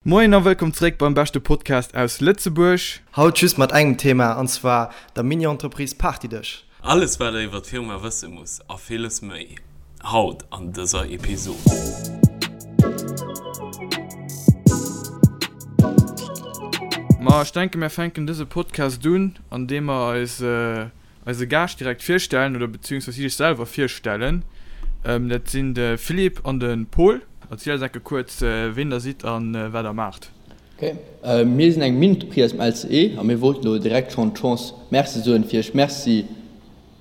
Moien a wëllkomm zeréck beim beschte Podcast aus Lëtzebuerg. Haut just mat engem Thema, an zwar der Mini-Entreprise Partydësch. Alles wat der iwwer d'Firma wësse musst a villes méi, haut an dëser Episod. Ma ech denken mär fänken dëse Podcast un an deem mer eis eise Gaascht direkt virstellen oder beziehungsweise si sech selwer virstellen. Dat sinn de Philippe an de Paul. Erzielt eis enke kuerz, ween der sidd a wat der maacht. Ok, mir sinn eng Mini-Entreprise aus dem LCE a mir wollten elo direkt schonn d'Chance Merci soen fir iech Merci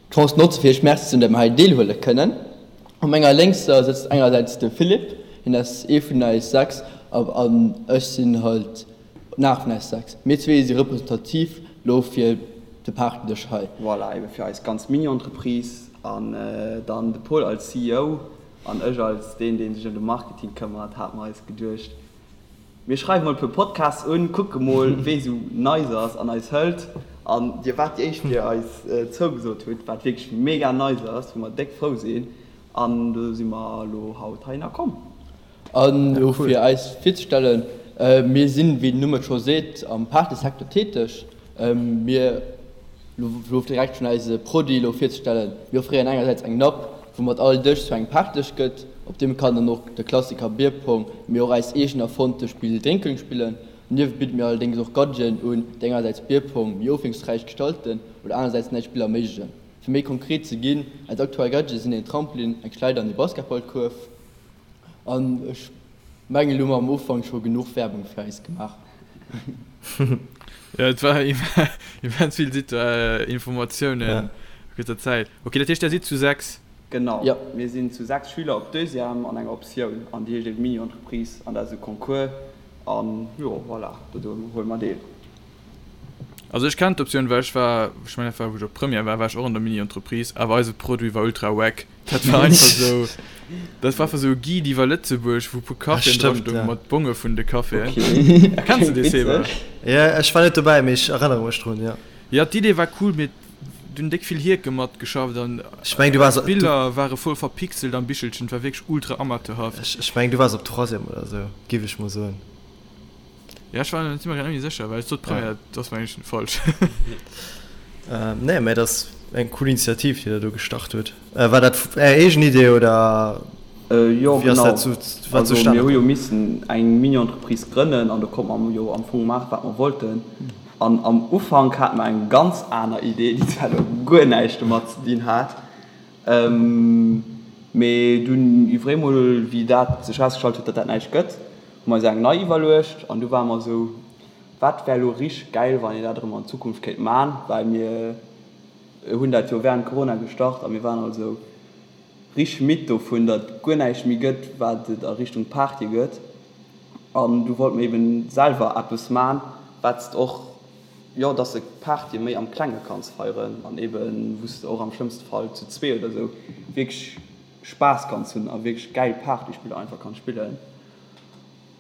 d'Chance notze fir iech Merci ze soen, datt mir hei deelhuele kënnen. Op menger lénkser sëtzt engersäits de Philippe, hien ass ee vun eis 6 an ech sinn halt Nach vun eis 6. Mir zwee si representativ lo fir de Partydësch hei. Voilà, ebe fir eis ganz Mini-Entreprise an dann de Paul als CEO an ech als deen, dee sech ëm de Marketing këmmert, hate mer eis geduecht, mir schreiwe mol e puer Podcasts un, kucke mol, wee sou nice ass an eis hëlt. An dir waart déi éischt, déi eis zougesot hutt, wat wierklech mega nice ass, wou mer déck frou sinn. An do si mer elo haut heihinner komm. An elo fir eis virzestellen, Mir sinn, wéi den Numm et scho seet, am Partysecteur täteg. Mir, elo direkt schonn eise Produit elo virzestellen, mir offréieren engersäits eng Napp, woumat all Dësch zu engem Partydësch gëtt. Op deem kann dann och de Klassiker Bierpong, mee och eist eegen erfonnte Spill Drénkeng spillen. Donieft bidde mir allerdéngs och Gadgeten un, déi engersäits Bierpong méi ofwiesslungsräich gestalten oder anersäits nei Spiller erméiglechen. Fir méi konkret ze ginn, eis aktuell Gadgete sinn een Trampolin, eng Schleider an ee Basketballkuerf. An ech mengen, elo hu mer am Ufank scho genuch Werbung fir eis gemaach. Jo, et war immens vill Informatiounen a kuerzer Zäit. Ok, dat heescht, der sidd zu 6? Genau, mir sinn zu 6 Schüler op Deuxième an enger Optioun an déi heescht eben Mini-Entreprise an dat ass e Concours an jo, voilà, do huele mer deel. Also ech kennen d'Optioun, well ech war, ech mengen dat war wou ech op Première war, war ech och an der Mini-Entreprise, awer eise Produit war ultra wack. Dat war einfach sou, dat war einfach sou e Guide iwwer Lëtzebuerg, wou e puer Caféen dra stoungen mat Bonge vun de Caféen. Kenns de dee Seba? Jo, ech war net dobäi, mee ech erënnere mech drun, jo. Jo, d'Idee war cool, mee do hunn déck vill Hierke matgeschafft an Ech mengen du waars, d'Biller ware voll verpixelt am Bichelchen, et war wierklech ultra amateurhaft. Ech mengen du waars op Troisième oder sou, giff ech mol soen. Ja, ech war mir grad net méi sécher, well ech sot Première, dat ass mengen ech falsch. Nee, mä dat ass eng cool Initiativ, déi der do gestart hutt. War dat Är eegen Idee oder Jo, wéi ass dat zu, wat Also zustane mir hu jo komm? missen eng Mini-Entreprise grënnen an do konnte mer jo am Fong maachen, wat mer wollten. An am Ufank hate mer eng ganz aner Idee, déi zwar elo guer näischt domat ze dinn hat, Mee dunn iwwer eemol, wéi dat sech erausgestallt huet, datt dat näischt gëtt, hu mer eis eng nei iwwerluecht an du ware mer esou, wat wär elo richteg gäil, wann een dat erëm an Zukunft kéint man, well mir hunn dat jo während Corona gestart a mir waren all esou richteg midd dovun, datt guer näischt méi gëtt, wat et a Richtung Party gëtt. An du wollte mer eben selwer eppes man, wat s de och Jo, dass de Partye méi am Klenge kanns feieren an eben wou s de och am schlëmmste Fall zu zwee oder sou wierklech Spaass kanns hunn a wierklech gäil Partyspiller einfach kanns spillen.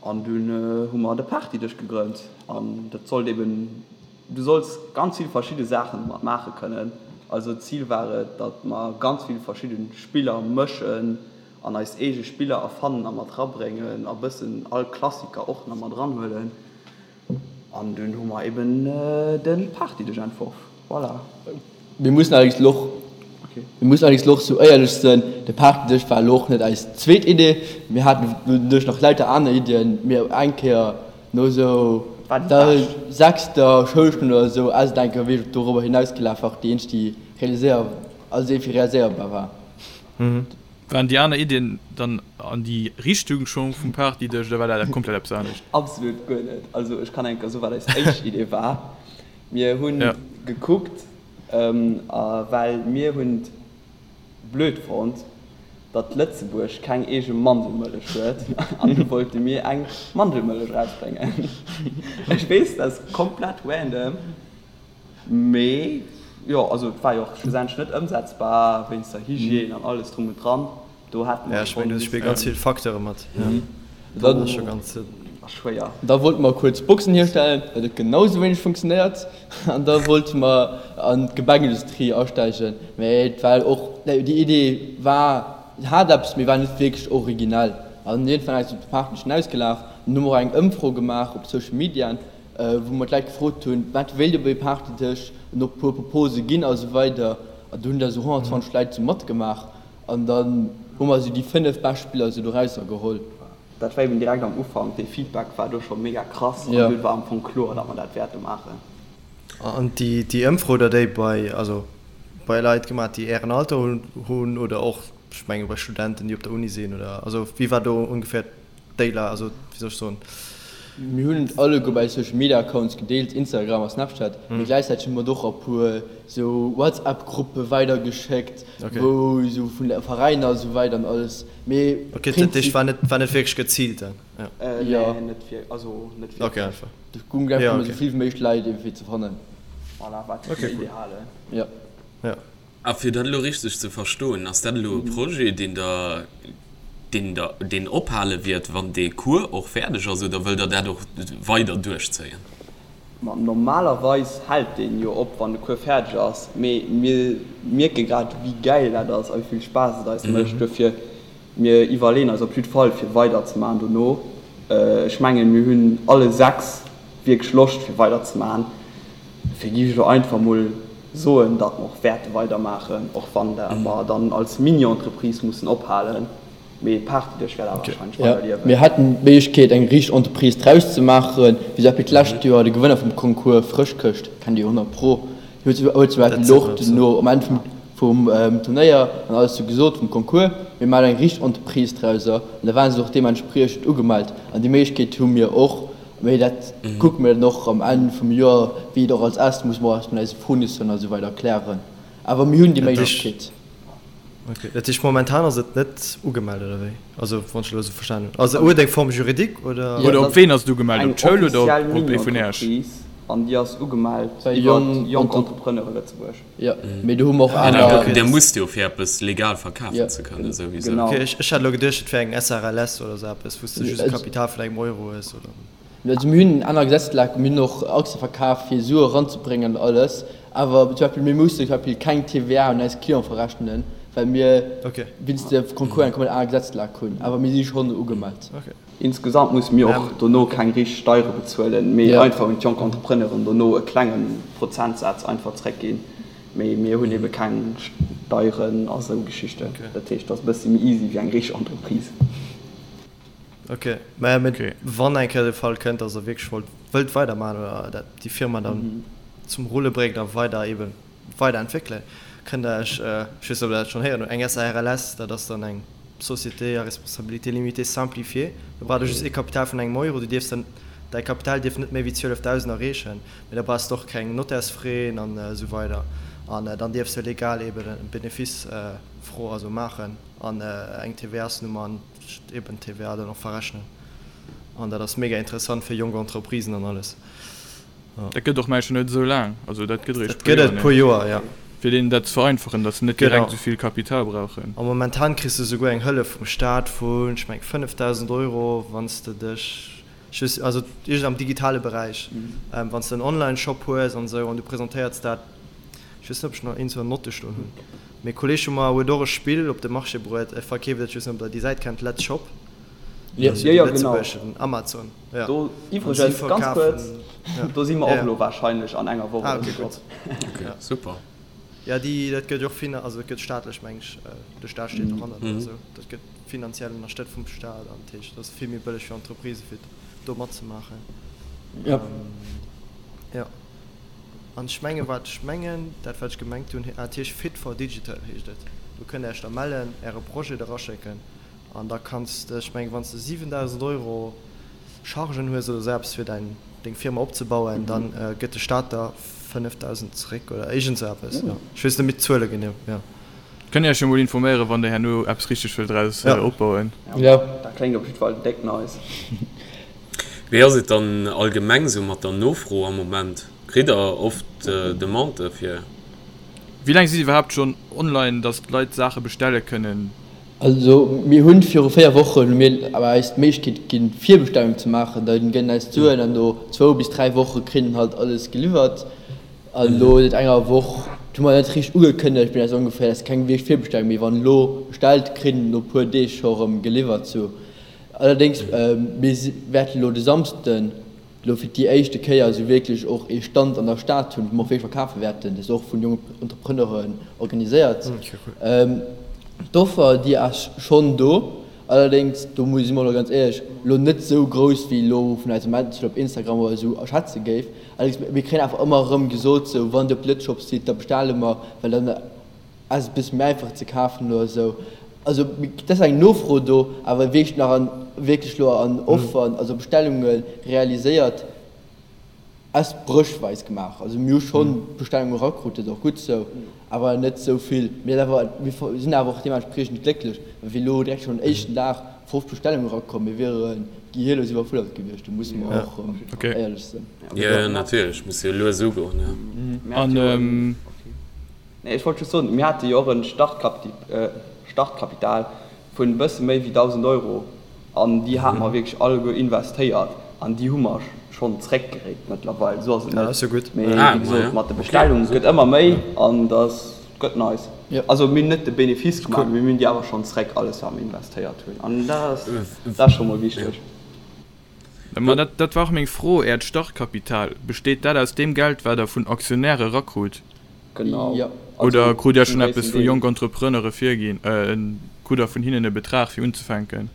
An dunn hu mer de Partydësch gegrënnt an dat sollt eben, du solls ganz vill verschidde Saachen domat maache kënnen. Also d'Zil war et, datt mer ganz vill verschidde Spiller mëschen an eis eege Spiller erfannen a mat rabréngen a bëssen all Klassiker och nach mat ranhuelen. An dunn hu mer eben de Partydësch entworf. Voilà. Mir mussen allerdéngs elo och, mir mussen allerdéngs elo och sou éierlech sënn, de Partydësch war elo och net eis zweet Idee. Mir haten doduerch nach lauter aner Iddien, mee eng Kéier no sou der sechster Schoulstonn oder sou ass et eng Kéier wierklech dorobber hinausgelaf, war och déi eenzeg déi realiséier, also déi fir realiséierbar war. Waren déi aner Iddien dann an déi Richtung scho vum Partydësch oder war dat komplett eppes anescht? Absolut guer net. Also ech kann eng Kéier soen, wat eis éischt Idee war. Mir hu gekuckt, well mir hunn et blöd fonnt, datt Lëtzebuerg keng eege Mandelmëllech huet an du wollte mir eng Mandelmëllech erausbréngen. Ech weess, dat ass komplett random. Mee jo, also et war jo och schlussendlech net ëmsetzbar wéinst der Hygiène an alles drum und dran. Do hätte mer schonn. Do spille ganz vill Facteure mat. Dat ass scho ganz schwéier. Da wollte mer kuerz Boxen hierstellen, dat huet genau sou wéineg funktionéiert. An da wollte mer an d'Gebäckindustrie asteigen, mee et war och, déi Idee war, hat eppes, mee war net wierklech originell. An iergendwann ass et op de Partnerchen ausgelaf. An hu mer och eng Ëmfro gemaach op Social Mediaen, wou mer d'Leit gefrot hunn, wat wéilt Dir bei Partytësch, an och e puer Propose ginn a sou weider. An do hunn da sou 120 Leit sou matgemaach an dann hu mer sou déi 5 bescht Spiller sou dorausser geholl. Dat war eben direkt am Ufank, dee Feedback war do scho mega krass an dunn war am Fong kloer, datt mer dat wäerte maachen. An déi Ëmfro hutt der déi bei, also bei Leit gemaach, déi Ären Alter hunn oder och, ech menge bei Studenten, déi op der Uni sinn oder, also wéi war do ongeféier d'Déiler, also wéi soll ech soen? Mir hunn et alleguer bei Social Media Accounts gedeelt, Instagram a Snapchat, mee gläichzäiteg hu mer et och a puer sou WhatsApp Gruppe weidergeschéckt, wou sou vun de Veräiner a sou weider an alles. Mee Ok, dat heescht war net, war net wierklech geziilt dann? Jo. Nee, net wierklech, also net wierklech. Ok, einfach. Et goung einfach drëm, esou vill wéi méiglech Leit iergendwéi ze fannen. Voilà, wat fir den Ideale. Jo. Jo. A fir dat elo richteg ze verstoen, ass dat elo e Projet, deen Der, deen Der, deen ophale wiert, wann dee Cours och fäerdeg ass, oder wëllt Der dat och weider duerchzéien? Ma normalerweis hält deen jo op, wann de Cours fäerdeg ass, mee mir mierke grad, wéi gäil dat ass a wéi vill Spaass et eis mécht. Duerfir, mir iwwerleeën eis op jidd Fall, fir weiderzemaachen dono. Ech mengen, mir hunn alle 6 wierklech Loscht, fir weiderzemaachen. Dofir géif ech elo einfach mol soen, datt mer och wäerte weidermaachen, och wann mer dann als Mini-Entreprise mussen ophalen. Mee d'Party-Dësch wäert awer warscheinlech weider liewen. Mir hätten d'Méiglechkeet eng richteg Entreprise draus ze maachen, wéi zum Beispill d'lescht Joer de Gewënner vum Concours Frëschkëscht, kennt Dir jo 100 pro, huet zum Beispill och duerno am Enn vum Turnéier an alles sou gesot vum Concours, mir maachen eng richteg Entreprise drauser an da ware se och deementspriechend ugemellt an déi Méiglechkeet hu mir och. Mee dat kucke mir dann och am Enn vum Joer, wéi et och als est, musse mer och eis mat eise Fournisseuren a sou weider klären. Awer mir hunn déi Méiglechkeet. Ok, dat heescht momentan ass et net ugemellt oder wéi? Also wann ech elo esou verstanen hunn. Also huet eng Forme juridique oder? Oder op ween ass et ugemellt? Eng Op d'Schoul oder offiziell op ee vun Äech? Mini-Entreprise an déi ass ugemellt Bei iwwer Jonk Jonk Entrepreneure Lëtzebuerg. Jo, mee do hu mer och aner. Dir musst jo fir eppes legal verkafen ze kënnen souwisou. Genau. Ok, ech hat elo geduecht et wär eng SRLS oder esou eppes wou s de just e Kapital vun engem Euro hues oder. Also mir hunn aner Gesetzlagen, mir hunn och Aktie verkaf fir Sue eranzebréngen an alles, awer zum Beispill mir mussen zum Beispill keng TVA un eis Clienten verrechnen, well mir wéinst de Concours eng komplett aner Gesetzlag hunn, awer mir si schonn ugemellt. Insgesamt musse mir och dono keng richteg Steiere bezuelen, mee einfach un d'jonk Entrepreneuren dono e klenge Prozentsaz einfach zréckginn, mee mir hunn ebe keng Steieren a sou Geschichten. Dat heescht, et ass e bëssi méi easy wéi eng richteg Entreprise. Ok, mä wann eng Kéier de Fall kënnt, dass Der wierklech wollt, wëllt weidermaachen oder dat déi Firma dann zum Rulle bréngt a weider eeben weiderentwéckelen, kënnt Der Iech, ech weess net, ob Der dat schonn héieren hutt, eng SARLS, dat ass dann eng Société à responsabilité limitée simplifiée, do braucht Der just ee Kapital vun engem Euro, du dierfs dann, däi Kapital dierf net méi wéi 12.000 erreechen, mä da brauchs de och keng Nottärsfraisen an esou weider an dann dierfs de legal eeben e Benefice fro, also maachen an eng TVA-s-Nummer an. Eben d'TVA dann och verrechnen an dat ass mega interessant fir jonk Entreprisen an alles. Dat gëtt och mengen net esou laang, also dat gëtt eréischt Dat gëtt et puer Joer, ja. Fir deenen dat ze vereinfachen, datt se net direkt esou vill Kapital brauchen. A momentan kriss de souguer eng Hëllef vum Staat vun, ech mengen, 5.000 Euro, wann s de dech, ech weess, also iergend am digitale Beräich, wann s de en Online-Shop hues an esou an du presentéierts dat, ech weess net, ob ech nach iergendwou en Note stoen hunn. Mee Kolleg vu mer huet och e Spill op de Marché bruet, e verkeeft et, ech weess net ob der déi Säit kennt, Let's Shop. Jo, jo, genau. Lëtzebuergeschen Amazon, jo. Do iwwregens, ganz kuerz, do si mer och elo warscheinlech an enger Woch oder sou drop. Ok, super. Jo, déi, dat gëtt jo och fina, also dat gëtt staatlech, meng ech, de Staat steet dohannert oder esou, dat gëtt finanziell ënnerstëtzt vum Staat an dat heescht, dat ass vill méi bëlleg fir Entreprisë fir do matzemaachen. Jo. Jo. An ech mengen, wat ech mengen, dat wat ech gemengt hunn, ah, et heescht Fit for Digital heescht et. Do kënnt Der Iech da mellen, Äre Projet eraschécken an da kanns de, ech mengen, wann s de 7.000 Euro Chargen hues oder esou eppes fir däin, deng Firma opzebauen, da gëtt de Staat der 5.000 zeréck oder iergend esou eppes, jo. Ech weess net méi d'Zuele genee, jo. Kënnt Iech jo mol informéieren, wann Der herno eppes richteg wëllt draus opbauen. Jo. Dat kléngt op jiddwer Fall déck nice. Wéi ass et dann allgemeng sou mat der Nofro am Moment? Kritt der oft Demandë fir? Wéi laang sidd iwwerhaapt schonn online, dass d'Leit Saache bestelle kënnen? Also mir hunn viru 4 Wochen hu mir awer eis d'Méiglechkeet ginn Virbestellung ze maachen. Da gëtt eis d'Suen an no zwou bis 3 Woche kritt een halt alles geliwwert. An elo säit enger Woch, dat hu mer net richteg ugekënnegt, mee dat ass ongeféier, dat ass keng wierklech Virbestellung méi. Wann elo bestellt, kritt een no puer Deeg scho rëm geliwwert. Sou. Allerdéngs, mir wäerten elo de Samsden elo fir déi éischte Kéier esou wierklech och ee Stand an der Stad hunn, wou mer och wierklech verkafe wäerten. Dat ass och vun jongen Entrepreneuren organiséiert. D'Offer, déi ass schonn do. Allerdéngs, do si mer elo ganz éierlech, elo net esou grouss, wéi elo vun eisem Manager op Instagram oder esou erschätze géif. Allerdéngs, mir kréien awer ëmmer erëm gesot, sou, wann Dir op Lëtzshop sidd, da bestelle mer, well dann ass et e bësse méi einfach ze kafen oder esou. Also et ass eng Nofro do, awer wierklech nach an, wierklech elo an Offeren, also Bestellunge realiséiert, ass bréchweis gemaach. Also mir hu schonn Bestellunge erakrut, dat ass och gutt esou, awer net esou vill. Mir awer, mir sinn awer och deementspriechend glécklech, well wéi elo direkt schonn den éischten Dag 50 Bestellunge erakomm, mir wiere gehirlos iwwerfuerdert gewiescht, do musse mer och éierlech sinn. Jo, natierlech, muss jo lues ugoen, jo. An Nee, ech wollt just soen, mir hate jo och e Startkapital vun e bësse méi wéi 1.000 Euro an déi hate mer wierklech alleguer investéiert an déi hu mer schonn zréckgeréit mëttlerweil. Esou ass et net. Mee wéi gesot, mat de Bestellungen, et gëtt ëmmer méi an dat gëtt nice. Also mir hunn net de Benefice gemaach, mee mir hunn déi awer schonn zréck, alles wat mer investéiert hunn an dat ass scho mol wichteg. Ma dat, dat war och meng Fro, Äert Startkapital, besteet dat aus deem Geld, wat Der vun Aktionäre erakrut? Genau. Jo. Oder krut Dir Also schonn zum eppes gréissten vu Deel. jonk Entrepreneure virginn? Krut Der vun hinnen e Betrag fir unzefänken?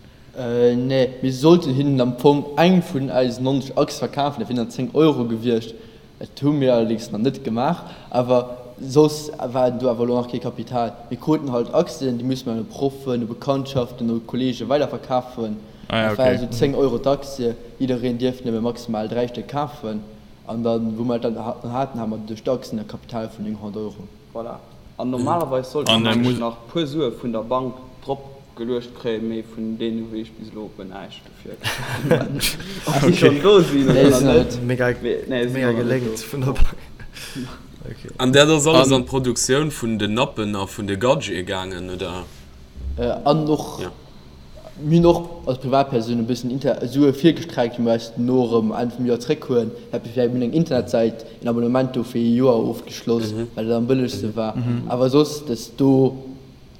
Nee, mir sollten hinnen am Fong eng vun eisen 90 Achse verkafen, dat wieren dann 10 Euro gewiescht. Dat hu mir allerdéngs nach net gemaach, awer soss war do awer elo nach kee Kapital. Mir kruten halt Aktien, déi musse mir un Proffen, u Bekanntschaften, u Kollege weiderverkafen. Dat war esou 10 Euro d'Aktie, jiddereen dierft nëmme maximal 3 Stéck kafen. An dann, wou mer dat dann haten, hate mer duerch d'Aktien e Kapital vun 900 Euro. Voilà. An normalerweis sollte mer nämlech nach e puer Sue vun der Bank drop geluecht kréien, mee vun deene hu ech bis elo guer näischt. Dofir keng Ahnung, ob déi schonn do sinn oder nach net. Mega, mega geléngt vun der Bank. Okay. An dat ass alles an d'Produktioun vun den Nappen a vun de Gadgete gaangen, oder? An och, mir hunn och als Privatpersoun e bëssen Inter Sue virgestreckt, déi mir eis dono erëm Enn vum Joer zréckhuelen. Mir hunn eng Internetsäit, een Abonnement do fir ee Joer ofgeschloss, well dat am bëllegste war. Awer soss, dass do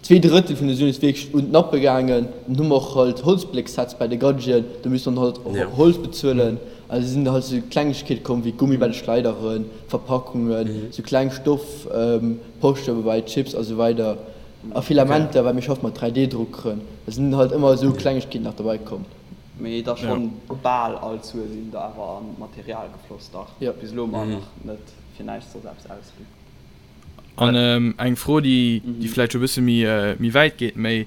2/3 vun de Suen ass wierklech un d'Nappe gaangen. Dann hu mer och halt Holzblécksets bei de Gadgeten, do misste mer dann halt Holz bezuelen. Also sinn halt sou Klengegkeete komm wéi Gummi bei de Schleideren, Verpackungen, sou kleng Stoffposchen bei Chips a sou weider a Filamenter, well mir schaffe mat 3D-Druckeren. Da sinn halt ëmmer esou Klengegkeeten nach derbei komm. Mee et ass schonn bal all d'Sue sinn da awer an d'Material gefloss, dach. Bis elo hu mer nach net fir näischt soss eppes ausginn. An eng Fro, déi vläicht scho e bësse méi wäit geet, méi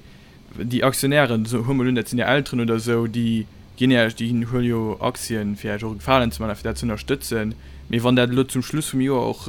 déi Aktionären, soe mer mol un, dat sinn Är Elteren oder esou, déi ginn Iech, déi huele jo Aktien, fir Iech och e Gefalen ze maachen a fir dat ze ënnerstëtzen. Mee wann dat elo zum Schluss vum Joer och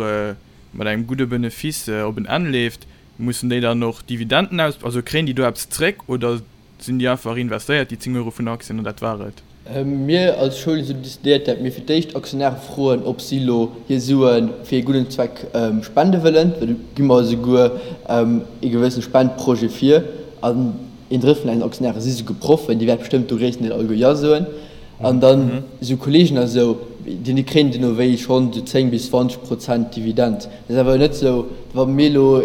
mat engem gudde Benefice op en Enn leeft, mussen déi dann och Dividenden aus, also kréien déi do eppes zréck oder Sinn déi einfach investéiert, déi 10 Euro vun der Aktien, an dat war et? Mir als Schoul hunn decidéiert, dat mir fir d'éischt Aktionäre froen, ob si elo hir Sue fir ee gudden Zweck spende wëllen. Do gi mer esouguer ee gewëssene Spendprojet vir. An een Drëtt vun eisen Aktionäre si souguer Proffen, déi wäerte bestëmmt do gréisstendeel alleguer Jo soen. An dann esou Kolleegen a sou, déi kréien duerno wéi schonn esou 10 bis 20 Prozent Dividend. Dat ass awer net esou, wa mir elo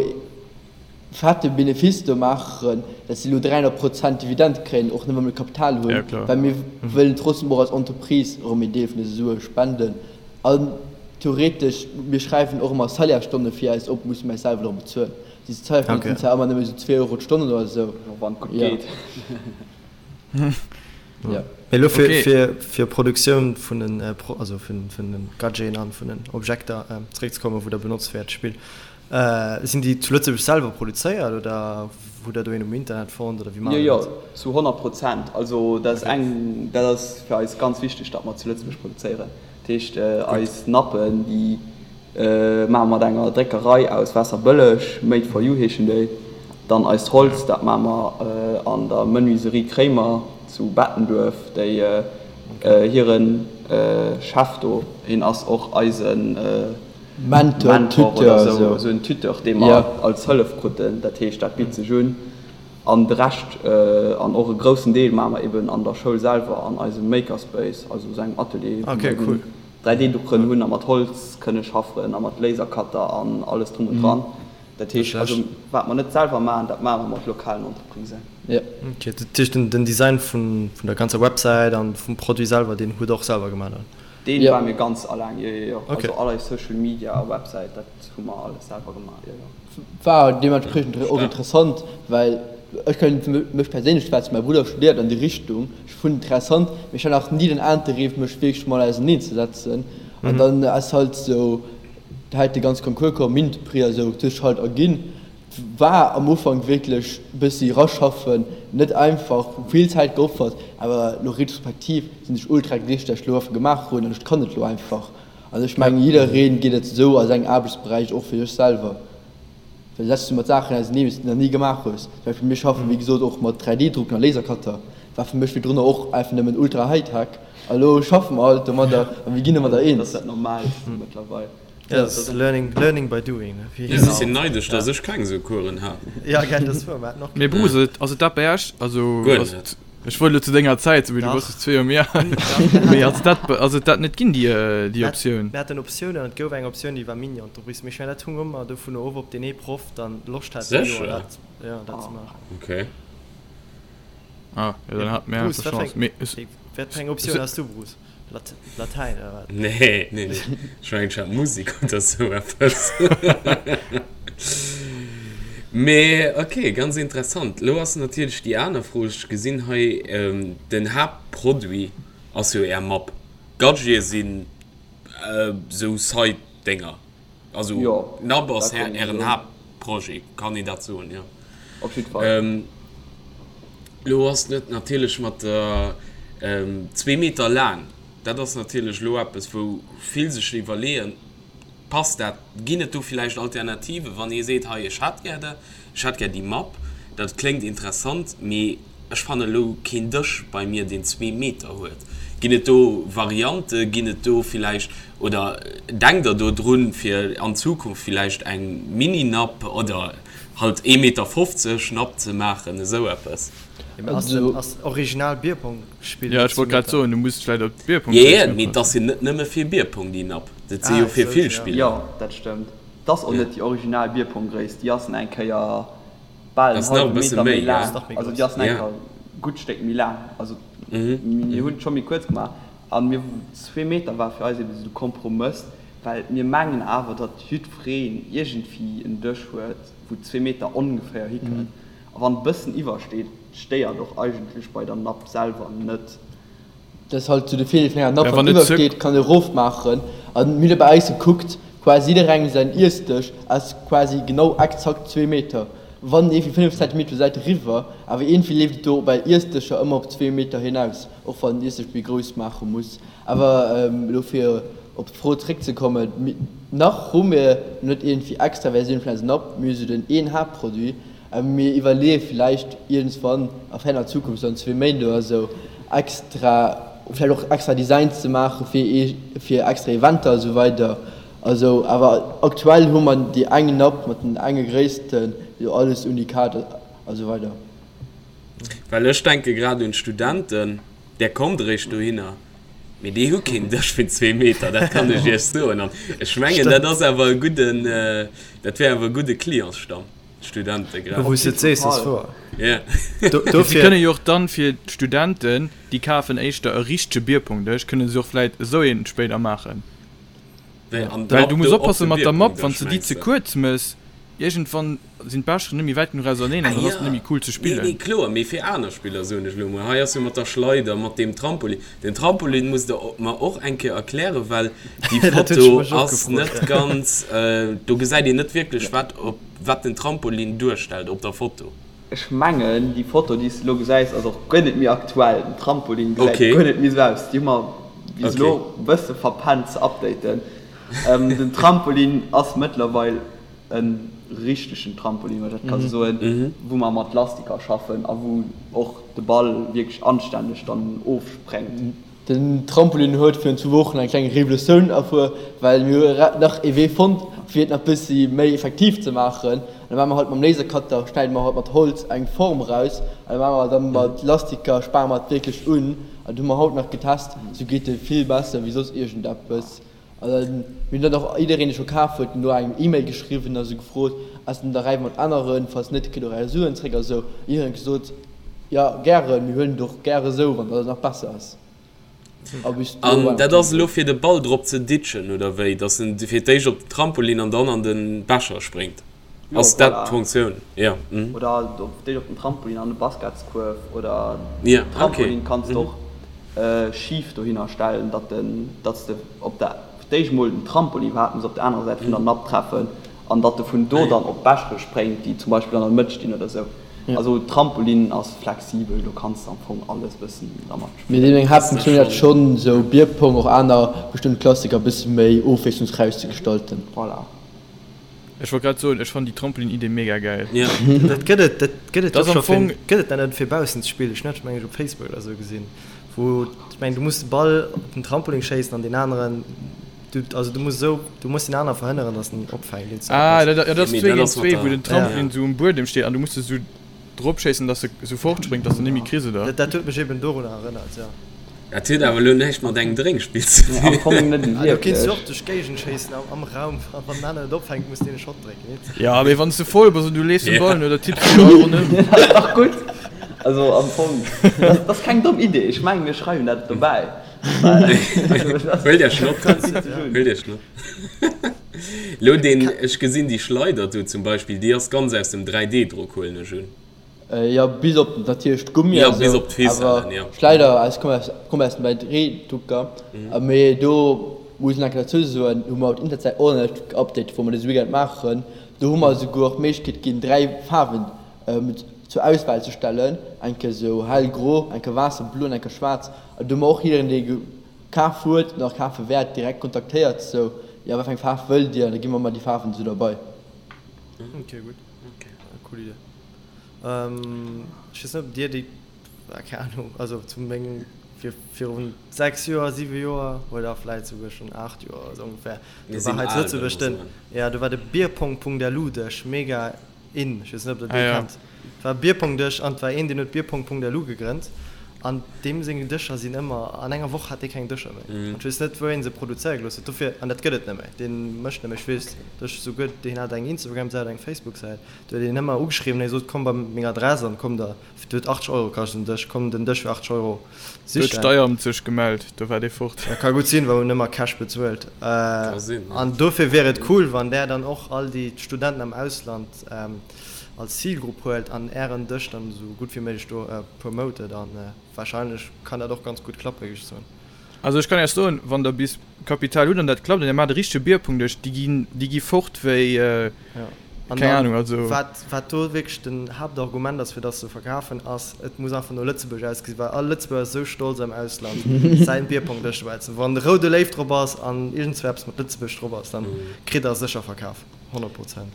fette Benefice do maachen, dass si elo 300 Prozent Dividend kréien, och net wa mir Kapital hunn, well mir wëllen trotzdem och als Entreprise erëm een Deel vun dëse Sue spenden. An theoretesch, mir schreiwen och ëmmer Salaire-Stonne fir eis op, musse mir eis selwer och bezuelen. Déi Salaire-Stonne sinn zwar ëmmer nëmme esou 2 Euro d'Stonn oder esou. Wann et gutt geet. Mee elo fir Produktioun vun den, also vun den Gadgeten an vun den Objekter zeréckzekommen, wou der benotzt fir äert Spill, Sinn déi zu Lëtzebuerg selwer produzéiert oder hutt der do een um Internet fonnt oder wéi maacht der dat? Jo, jo, zu 100 Prozent. Also dat ass eng, dat ass fir eis ganz wichteg, datt mer zu Lëtzebuerg produzéieren. Dat heescht, eis Nappen, déi maache mer mat enger Dréckerei aus Waasserbëlleg, Made for you heeschen déi. Dann eist Holz, dat maache mer an der Menuiserie Kréimer zu Bettenduerf, déi hire Chef do, hien ass och eisen, Mentor, Mentor Tuteur, oder esou, esou. esou en Tuteur, dee mer Ja. als Hëllef kruten. Dat heescht, dat bitt sech un. An de Rescht, an och e groussen Deel, maache mer eben an der Schoul selwer, an eisem Makerspace, also esou engem Atelier, wou Okay, mer cool. eben 3D-Druckeren hunn a mat Holz kënne schaffen a mat Lasercutter an alles drum und dran. Dat heescht, also wat mer net selwer maachen, dat maache mer mat lokalen Entreprisen. Ok, dat heescht den Design vun der ganzer Websäit an vum Produit selwer, deen hutt der och selwer gemaach dann? Deen war mir ganz alleng, jo jo jo. Also all eis Social Media a Websäit, dat hu mer alles selwer gemaach, jo jo. War deementspriechend och interessant, well ech kënnt fir mech perséinlech schwätzen, mäi Brudder studéiert an déi Richtung, ech funn interessant, mee ech hat nach ni den Interêt mech wierklech mat auserneen ze setzen an dann ass halt sou hält de ganz Concours komm, Mint-Prix a sou, huet sech halt erginn. War am Ufank wierklech bëssi raschaffen, net einfach, vill Zäit geopfert, awer lo retrospektiv sinn ech ultra glécklech, dat ech lo einfach gemaach hunn an ech kann et lo einfach. An ech mengen jiddereen geet et esou a sengem Aarbechtsberäich, och fir sech selwer, well setz du mat Saachen auseneen, déi s de nach ni gemaach hues. Zum Beispill mir schaffen wéi gesot och mat 3D-Drucken a Lasercutter, war fir mech virdrunner och einfach nëmmen ultra Hightech a lo schaffe mer halt domadder a mir ginn domadder Dat eens. ass dat Normaalst mëttlerweil. Ja, dat ass learning, learning by doing, ne? Wéi Ech sinn neidesch, dass ech keng esou Coursen hat. Ja, gell, dat ass wuer, mer haten och Mee keng. Bruce, ass et dat bei Iech? Also, Guer ass net. et, ech wollt elo zu denger Zäit soen, mee du Dach. bass just zwee Joer méi al. Mee ass et dat, ass et dat net ginn, déi, déi Optioun? Mir haten Optiounen an et gouf eng Optioun, déi war Mini-Entreprise. Mee ech mengen, dat hung ëmmer dovun of, ob deen ee Proff dann Loscht hat, dee Joer Sécher? dat, ja, dat ze maachen. Okay. Ah, jo, dann hate mir Bruce, einfach wat fir Chance. eng, Mee ech, wat fir eng Optioun has du, Bruce? Latäin oder wat? Nee, nee, nee. Ech mengen, ech hat Musek oder sou eppes. Mee ok, ganz interessant. Lo ass natierlech déi aner Fro, ech gesinn hei, den Haaptproduit ass jo Är Mapp. Gadgete sinn sou Side-Dénger. Also Jo, Napp ass dat kann een Ären soen. Haaptprojet, kann een dat soen? Jo. Op jidd Fall. Lo ass net natierlech mat der zwee Meter laang, dat ass natierlech elo eppes, wou vill sech iwwerleeën, passt dat, ginn et do villäicht Alternativen, wann ee seet, hei ech hätt gär dat, ech hätt gär déi Mapp, dat kléngt interessant, mee ech fanne elo keen Dësch bei mir, deen zwee Meter huet. Ginn et do Variante, ginn et do villäicht, oder denkt Der do drun, fir an Zukunft villäicht eng Mini-Napp oder Halt ee Meter 50 Napp ze maachen, esou eppes. Jo, mee ass den ass original Bierpong-Spill Jo, net ech wollt zu grad Meter? soen, du muss vläit op d'Bierpong Jo, jo, mee et ass jo net nëmme fir Bierpong déi Napp, dat si jo Ah, fir esou, vill ja. Spiller. Jo, dat stëmmt. 't ass och Jo. net déi original Bierpong-Gréisst, déi ass eng Kéier bal en Ass nach e hallwe bësse Meter méi méi, gell? laang. Ass nach méi Also grouss. déi ass eng Ja. Kéier e gutt Stéck méi laang. Also mir hunn et scho méi kuerz gemaach an mir, zwee Meter war fir eis eben esou de Kompromëss, well mir mengen awer, datt jiddwereen iergendwéi en Dësch huet, wou zwee Meter ongeféier hikënnt. A wann e bëssen iwwersteet, stéiert och eigentlech bei der Napp selwer net. Dat ass halt sou de Virdeel vun enger Napp, Ja, wann wann et ze. iwwersteet, kann e rofmaachen. An mir hunn bei eis gekuckt, quasi jidderengem säin Iessdësch ass quasi genau exakt zwee Meter. Wann ee fir 5 Zentimeter zur Säit eriwwer, awer iergendwéi leeft et do bei Iessdëscher ëmmer op zwee Meter hinaus, och wann den Iessdësch méi grouss maache muss. Awer elo fir op d'Fro zréckzekommen, nach hu mir net iergendwéi extra Versioun vun eisem Napp, mir hu sou den een Haaptproduit, awer mir iwwerleeë villäicht iergendswann a ferner Zukunft, sou an zwee Méint oder sou, extra, vläicht och extra Designs ze maache fir ee fir extra Eventer a sou weider. Also awer aktuell hu mer déi eng Napp mat den enge Gréissten, jo alles Unikat a sou weider. Well ech denke grad un d'Studenten. Där kommt eréischt dohinner, mee déi hu keen Dësch vun zwee Meter, dat kann ech Iech soen. An ech mengen, dat ass awer e gudden, dat wär awer e gudde Clientsstamm, d'Studente grad. Wou s de et sees, ass wouer. Ja. Si kënne jo och dann fir d'Studenten, déi kafen éischter e richtege Bierpongdësch, kënne se och vläit esou een spéider maachen. Well du muss oppassen mat der Mapp, wann s de déi ze kuerz mëss, iergendwann sinn d'Becheren net méi wäit genuch auserneen an dann ass et net méi cool ze spillen. Nee, nee, kloer, mee fir aner Spiller soen ech elo mol. Hei ass jo mat der Schleider, mat deem Trampolin. Den Trampolin musst der mer och eng Kéier erklären, well déi Foto ass net ganz, do gesäit een net wierklech wat op wat den Trampolin duerstellt op der Foto. Ech mengen déi Foto déi s de elo gesäis ass och guer net méi aktuell. Den Trampolin gesäit guer net méi esou aus. Déi hu mer bis elo e bësse verpennt ze updaten. Den Trampolin ass mëttlerweil e richtegen Trampolin, wann ech dat ka sou soen, wou mer mat Lastiker schaffen a wou och de Ball wierklech anstänneg dann ofspréngt. Den Trampolin huet virun zwou Wochen eng kleng Revolutioun erfuer, well mir hu nach ee Wee fonnt, fir et nach bëssi méi effektiv ze maachen. An da maache mer halt mam Lasercutter, schneide mer halt mat Holz eng Form eraus an da maache mer dann mat Lastiker, spare mer et wierklech un. An dat hu mer haut nach getest, sou geet e vill besser wéi soss iergendeppes. An dann, mir hunn dann och jiddereen, dee scho kaf huet, no engem E-Mail geschriwwen a sou gefrot, Ass den derbäi mat aneren? Falls net, kritt och är Suen zréck a sou. Jiddereen huet gesot, Jo, gären, mir huelen et och gäre sou, wann dat nach besser ass. A bis do war An nach dat ass elo fir de Ball drop ze ditchen, oder wéi? Dass en fir d'éischt op den Trampolin an dann an de Becher spréngt? Jo, Ass dat voilà. d'Funktioun? Jo. Mhm. Oder op d'éischt op den Trampolin an de Basketskuerf oder Ja, okay. Trampolin kanns de Mhm. och schif dohinner stellen, datt den, datt s de op der, fir d'éischt mol den Trampolin iwwerhaapt muss op der anerer Säit vun der Napp treffen an datt e vun do dann op d'Bechere spréngt, déi zum Beispill an der Mëtt stinn oder sou. Also Trampolin ass flexibel, do kanns de am Fong alles bëssen dermat Mee spillen. Meng Haaptfunktioun ass schonn sou Bierpong, och aner bestëmmt Klassiker bësse méi ofwiesslungsräich ze gestalten. Voilà. Ech wollt grad soen, ech fannen déi Trampolin-Idee mega gäil. Ja. Dat gëtt et, dat gëtt et Dat jo ass am scho fir, Fong. gëtt et dat net fir baussen ze spillen? Ech hunn dat mengen ech op Facebook oder sou gesinn, wou, ech mengen du muss de Ball op den Trampolin schéissen an deen aneren, du, also du muss esou, du muss deen anere verhënneren, datt en opfänkt, iergend sou Ah, eppes. dat, ja, dat ass Mee zwee dat géint ass mat zwee, wou der, den Ja. Trampolin sou um Buedem steet an du muss e sou drop schéissen, dass e sou fortspréngt, dass de net méi kriss, oder? Dat, dat huet mech eben dorunner erënnert, jo. Dat huet awer elo näischt mat engem Drénkspill ze Nee, am dinn. Fong net Ah, do kinns du wierklech. och duerch d'Géigend schéissen am, am Raum, a wann den aneren et opfänkt, muss deen e Shot drécken, heet. Ja, mee wann s de voll bass an du leefs dem Ja. Ball no, da tipps du jo all ronderëm. Dat ass dach gutt. Also am Fong, dat ass keng domm Idee. Ech mengen, mir schreiwen dat dobäi. Huelt Iech Notiz. Huelt Iech Notiz. Elo deen, ech gesinn déi Schleider do zum Beispill, déi ass ganz aus dem 3D-Drock, huelen ech un. Jo, bis op natierlech d'Gummi Ja, a bis sou, op d'Ficellen, awer jo. Schleider aus komme aus komme aus dem 3D-Drucker. Mee do muss een enke derzou soen, hu mer op d'Internetsäit och nach net geupdatet, wou mer dëse Weekend maachen. Do hu mer esouguer och d'Méiglechkeet ginn, 3 Faarwen zur Auswahl ze stellen, eng Kéier sou hellgro, eng Kéier waasserblo an eng Kéier schwaarz. An do hu mer och jiddereen, dee kaf huet, nach kafe wäert, direkt kontaktéiert, sou, jo, wat fir eng Faarf wëllt Dir? An da gi mer ëmmer déi Faarwen esou derbei. Ok, gutt. Cool Idee. Ech weess net ob dir déi, keng Ahnung, also zu mengem, vir virun 6 Joer, 7 Joer oder vläit souguer schonn 8 Joer oder sou ongefähr, do war hei zu Lëtzebuerg den, jo do war de Bierpong.lu-Dësch mega in. Ech weess net ob der dee kennt. Et war e Bierpong-Dësch an et war een deen huet Bierpong.lu gegrënnt an deem seng Dëscher sinn ëmmer, an enger Woch hat dee keng Dëscher méi. An ech weess net wou een se produzéiere gelooss huet dofir, an dat gëtt et net méi, dee mécht net méi, ech weess, Ech souguer, deen hat eng Instagram-Säit, eng Facebook-Säit, do huet een ëmmer ugeschriwwen, hie sot, komm bei meng Adress an komm der, et huet 80 Euro kascht den Dësch, komm den Dësch fir 80 Euro Do huet sichen. d'Steieramt sech gemellt, do war dee fort. Dat ka gutt sinn, well hunn ëmmer Cash bezuelt. Ka sinn, jo. An dofir wier et cool, wann där dann och all déi Studenten am Ausland als Zilgrupp huelt an ären Dësch dann esou gutt wéi méiglech do promotet. An wahrscheinlech kann dat och ganz gutt klappen, géif ech soen. Also ech kann Iech soen, wann der bis Kapital hutt an dat klappt an Dir maacht e richtege Bierpongdësch, déi ginn, déi gi fort wéi, An keng dann, Ahnung, also. wat, wat do wierklech den Haaptargument ass, fir dass se verkafen, ass, et muss einfach no Lëtzebuerg ausgesinn, well all Lëtzebuerger ass esou stolz am Ausland säin Bierpongdësch dobäi ze hunn. Wann de roude Léiw drop ass an iergendzwou eppes mat Lëtzebuerg drop ass, dann kritt der sécher verkaf, 100 Prozent.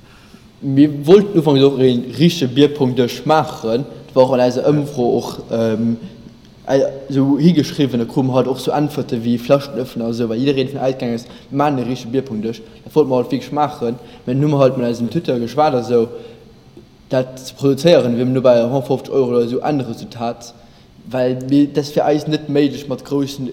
Mir wollten ufanks och ee richtege Bierpongdësch maachen, dat war och an eiser Ëmfro och esou higeschriwwen, da krute mer halt och sou Äntwerte wéi Flaschenöffner a sou, well jiddereen dovun ausgaangen ass, mir maachen e richtege Bierpongdësch. Dat wollte mer halt wierklech maachen, mä dunn hu mer halt mat eisem Tuteur geschwat a sou, dat ze produzéieren wier no bei 150 Euro oder sou Endresultat, well mir, dat ass fir eis net méiglech mat groussen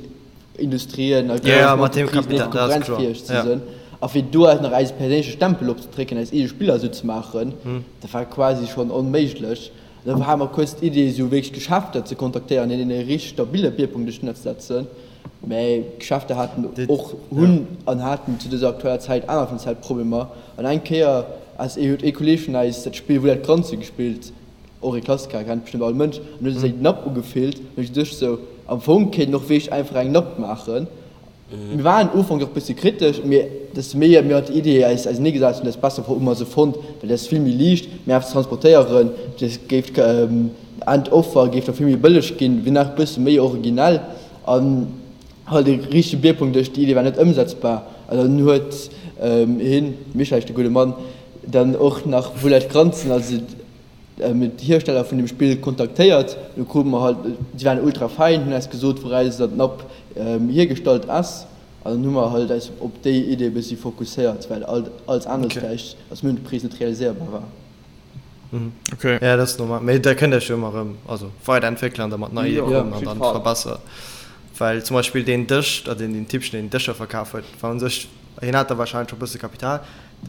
Industrien a groussen Entreprisen net konkurrenzfäeg ze sinn. A fir do eis nach eise perséinleche Stempel opzedrécken, eis eege Spiller esou ze maachen, dat war quasi schonn onméiglech. Da hate mer kuerz d'Idee, esou wierklech Geschäfter ze kontaktéieren, hinnen e richteg stabile Bierpunkt duerch d'Netz setzen. Mä Geschäfter haten och, hunn an haten zu dëser aktueller Zäit aner finanziell Problemer. An eng Kéier ass ee, huet ee Kolleeg vun eis dat Spill Roulette Granze gespillt, och ee Klassiker, kennt bestëmmt all Mënsch, an huet seng Napp ugefillt. An ech duecht esou, am Fong kéint een och wierklech einfach eng Napp maachen. Mir waren ufanks och bësse kritesch, mee desto méi mir mat der Idee eis ausenee gesat hunn, desto besser hu mer se fonnt, well dat ass vill méi liicht, méi einfach ze transportéieren, dat géif d'Endoffer géif da vill méi bëlleg ginn, wier nach bësse méi originell an halt e richtege Bierpunkt duerch. Déi Idee war net ëmsetzbar an dann huet hien, Michel heescht de gudde Mann, dann och nach Roulette Granzen, also d'Hiersteller vun dem Spill kontaktéiert. Du krute mer halt, si waren ultra fein, hunn eis gesot wouraus dat Napp hiergestallt ass an dann hu mer halt eis op déi Idee e bëssi fokusséiert, well alles anescht vläicht als Mëntenpris net realiséierbar war. Okay. Ja, dat ass normal. Mee da kënnt Iech jo ëmmer erëm, also weiderentwéckelen an da mat nei Ideeë kommen an dann verbessere. Well zum Beispill deen Dësch, oder deen Typchen, deen Dëscher verkaf huet, war u sech, hien hat da warscheinlech scho e bësse Kapital,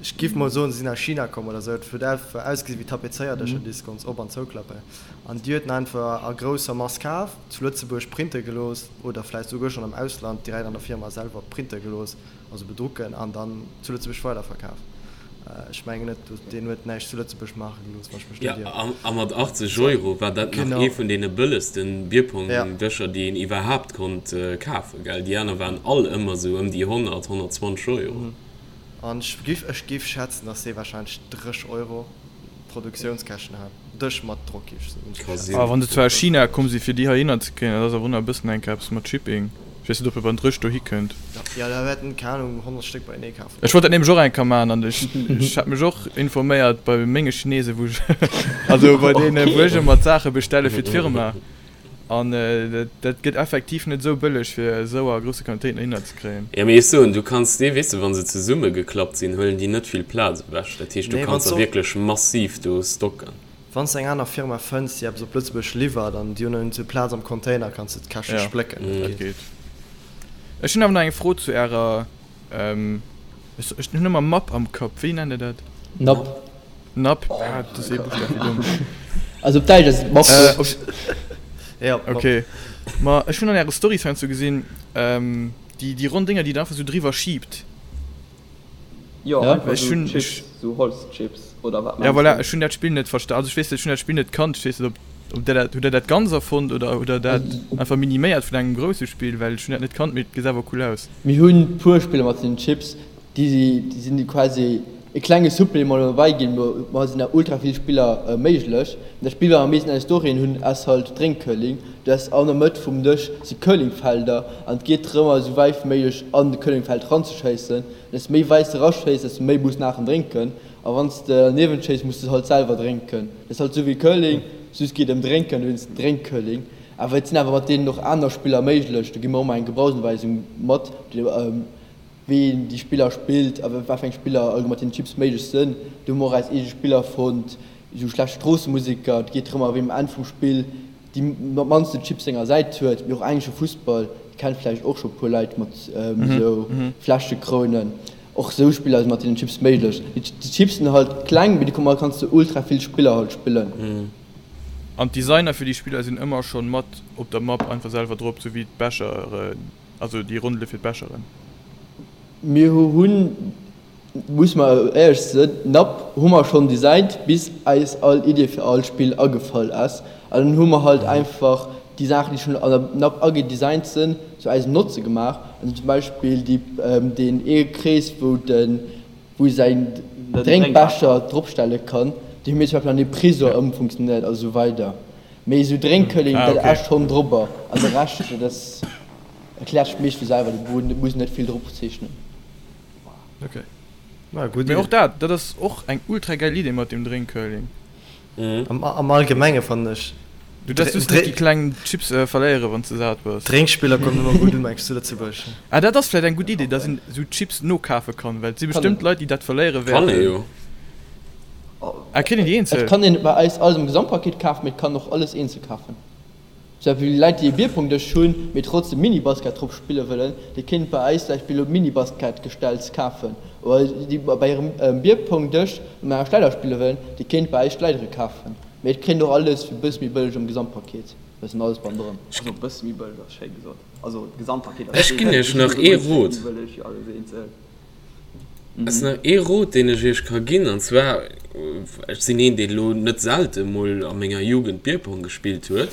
ech giff mol soen, se sinn aus China komm oder sou, et huet einfach ausgesi wéi Tapezéierdëscher, déi s de konns op an zouklappen. An déi huet en einfach a grousser Mass kaf, zu Lëtzebuerg printe gelooss oder vläicht souguer schonn am Ausland direkt an der Firma selwer printe gelooss. Also bedrucken an dann zu Lëtzebuerg weiderverkaf. Ech mengen net, deen huet näischt zu Lëtzebuerg maache gelooss, wann ech mech net ieren. Jo, a mat 80 Euro war dat nach ee vun deene bëllegsten Bierpong-Dëscher, déi een iwwerhaapt konnt kafen, gell? Déi aner waren all ëmmer esou ëm déi 100, 120 Euro. An ech giff, ech giff schätzen, dass dee wahrscheinlech 30 Euro Produktiounskäschten hat. Dësch mat Drock, giff ech soen. Ka sinn. A wann se zwar aus China komm si fir déi heihinner ze kréien, dat ass awer och nach e bëssen enk eppes mat Shipping. Ech weess net ob e beim Drësch dohi kënnt. Jo, da wäerten, keng Ahnung, 100 Stéck beienee kafen. Ech wollt dat nämlech och eng Kéier maachen an ech ech hat mech och informéiert bei menge Chinesen, wou ech also bei deene wou ech ëmmer d'Saache bestelle fir d'Firma an dat dat gëtt effektiv net esou bëlleg fir esou a grousse Quantitéiten dohinner ze kréien. Jo, mee ech soen, du kanns déi, weess de, wa se zesummegeklappt sinn, huelen déi net vill Plaz ewech. Dat heescht, du Nee, wann kanns s der och. wierklech massiv do stocken. Wann s de eng aner Firma fënns, déi eppes op Lëtzebuerg liwwert an déi hunn iergendwou Plaz am Container, kanns de d'Käschte Ja, splécken. Dat dat geet. geet. Ech hunn awer nach eng Fro zu ärer, ech ech hunn ëmmer Mapp am Kapp, wéi nennt der dat? Napp. Napp, ah, dat ass ee Buschtaf, wéi domm. Also op Däitsch ass et Mapp. Äh, op. Ja, Mapp. Okay. Ma ech hunn an äre Storys heiansdo gesinn, déi déi ronn Dénger, déi der einfach esou driwwer schiibt. Jo, Ja. einfach Ech sou hunn, Chips, ech, sou Holzchips oder wat ja mengs voilà, du? ech hunn dat Spill net versta, also ech weess net, ech hunn dat Spill net kannt, ech weess net ob, ob der dat, hutt der dat ganz erfonnt oder hutt der dat einfach miniméiert vun engem grousse Spill, well ech hunn dat net kannt, mee et gesäit awer cool aus. Mir hunn puer Spiller mat den Chips, déi si, déi sinn quasi e klenge Supplément dobäi ginn, ma ma sinn nach ultra vill Spiller méiglech. Dat Spill wat mer am meeschten an eis Storyen hunn ass halt Drénkcurling. Du has an der Mëtt vum Dësch si Curlingfelder an et geet drëm esou wäit wéi méiglech an de Curlingfeld ranzeschéissen. Desto méi wäit s de raschéiss, desto méi muss naachen drénken. A wann s de derniewent schéiss, muss de halt selwer drénken. Dat ass halt esou wéi Curling, just geet ëm Drénken, dowéinst Drénkcurling. Awer et sinn awer mat deenen och aner Spiller méiglech. Do gi mer och emmer eng Gebrauchsanweisung mat, wéi een déi Spiller spillt a wat fir eng Spiller allgemeng mat den Chips méiglech sënn. Do hu mer och eis eege Spiller fonnt, esou schlecht Stroossemuseker. Et geet drëm, wien um Enn vum Spill déi mannsten Chips senger Säit huet. Mee och englesche Fussball kennt vläicht och scho puer Leit mat esou Fläschekrounen. Och esou Spiller si mat deenen Chips méiglech. Déi Chips sinn halt kleng, mee domat kanns de ultra vill Spiller halt spillen. An d'Designer fir déi Spiller sinn ëmmer schonn mat op der Map einfach selwer drop, sou wéi d'Becheren. Also déi Rondele fir d'Becheren. Mir hunn, muss mer éierlech sinn, d'Napp hu mer schonn designt, bis eis all Idee fir all Spill agefall ass. An dann hu mer halt einfach déi Saachen, déi schonn an der Napp agedesignt sinn, zu eisem Notze gemaach. Also zum Beispill déi, deen ee Krees, wou de, wou ee säin Drénkbecher dropstelle kann, deen hu mir zum Beispill an ee Prisor ëmfunktionéiert a sou weider. Mee esou Drénkcurling, dat ass schonn drobber an de Rescht, dat ass, erkläert sech meescht vu selwer, do muss een net vill drop zeechnen. Ok. Mee och dat, dat ass och eng ultra gäil Idee mat dem Drénkcurling. Am Allgemenge fannen ech. Du däerfs just net déi kleng Chips verléieren, wann s de sat bass. Drénkspiller kommen ëmmer gutt un, mengs du, zu Lëtzebuerg? Ah, dat ass vläicht eng gutt Idee, dass een esou Chips nokafe kann, well et si bestëmmt Leit, déi dat verléiere Kann ee wäerten. jo. Ah, kritt een déi Et eenzel? kann een bei eis alles am Gesamtpaket kafen, mee et kann och alles eenzel kafen. Zum Beispill Leit déi e Bierpongdësch hunn, mee trotzdem Minibasket drop spille wëllen, déi kéint bei eis zum Beispill elo Minibasket-Gestells kafen. Oder déi bei hirem Bierpongdësch mat enger Schleider spille wëllen, déi kéint bei eis Schleidere kafen. Mee et kritt een och alles fir e bësse méi bëlleg am Gesamtpaket, dat ass dann alles bannendran. Also e bësse méi bëlleg ass schéi gesot. Also d'Gesamtpaket ass Ech ginn iech nach ee Rot. Méi bëlleg wéi alles eenzel. Ass nach ee Rot deen ech iech ka ginn, an zwar, ech sinn een deen elo net selte mol a menger Jugend Bierpong gespillt huet,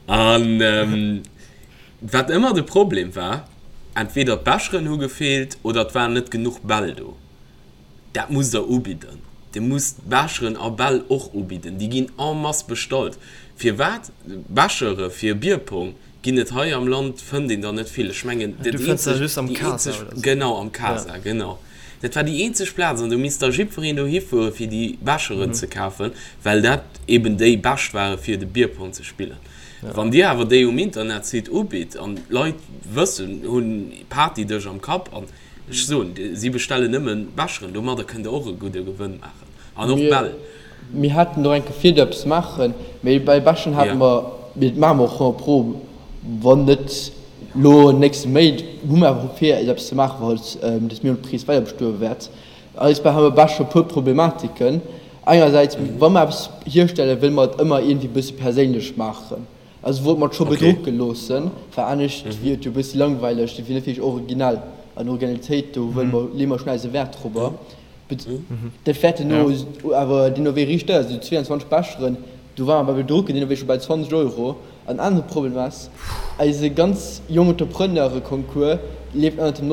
an wat ëmmer de Problem war, entweder d'Becheren hu gefeelt oder et waren net genuch Bäll do. Dat musst der ubidden. Dir musst Becheren a Bäll och ubidden. Déi ginn en masse bestallt. Firwat? Bechere fir Bierpong ginn et hei am Land, fënnt een der net vill. Ech mengen, Du dat fënns der eenzeg, just am déi Casa eenzeg, oder sou. genau, am Casa, genau. Dat war déi eenzeg Plaz an do misst da jiddwereen dohi fuere fir déi Becheren ze kafen, well dat eben déi bescht ware fir de Bierpong ze spillen. Wann Dir awer déi um Internetsite ubitt an d'Leit wëssen, hunn Partydësch am Kapp an Ech soen, si bestellen nëmmen Becheren, domadder kënnt der och e gudde Gewënn maachen. An och Bäll. Mir haten och eng Kéier vir do eppes maachen, mee bei Becheren hate mer. Mee dat maache mer och 100 pro. Wann net elo an den nächste Méint, hu mer awer vir eppes ze maachen, falls dës Mini-Entreprise weider bestoe wäert. Eis bei hu mer scho puer Problematiken. Engersäits, wa mer eppes hierstellen, wëlle mer et ëmmer iergendwéi e bësse perséinlech maachen. Also wollte mer et scho bedrucke loossen, well anescht wier et jo e bëssi langweileg, et wier net wierklech originell. An Originalitéit, do wëlle mer, leeë mer schonn eise Wäert dorobber. Dat wäert duerno awer deemno wéi riicht deier sinn, esou 22 Becheren, do ware mer bei Bedrucken deemno wéi scho bei 20 Euro. An anere Problem ass, eise ganz Young-Entrepreneure-Concours leeft ënnert dem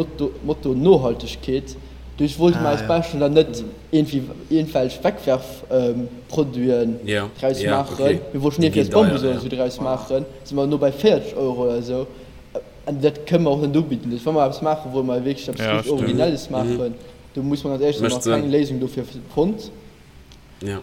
Motto Nohaltegkeet. Duerch wollte mer eis Becheren dann net iergendwelch Wegwerfproduiten draus maachen, mir wollten iergendwéi aus Bambus oder esou draus maachen, si mer elo bei 40 Euro oder esou. An dat kënne mer och net ubidden. Duerch wa mer eppes maachen, wolle mer wierklech eppes richteg Originelles maachen. Do muss mer ganz éierlech sinn, hu mer nach keng Léisung dofir fonnt.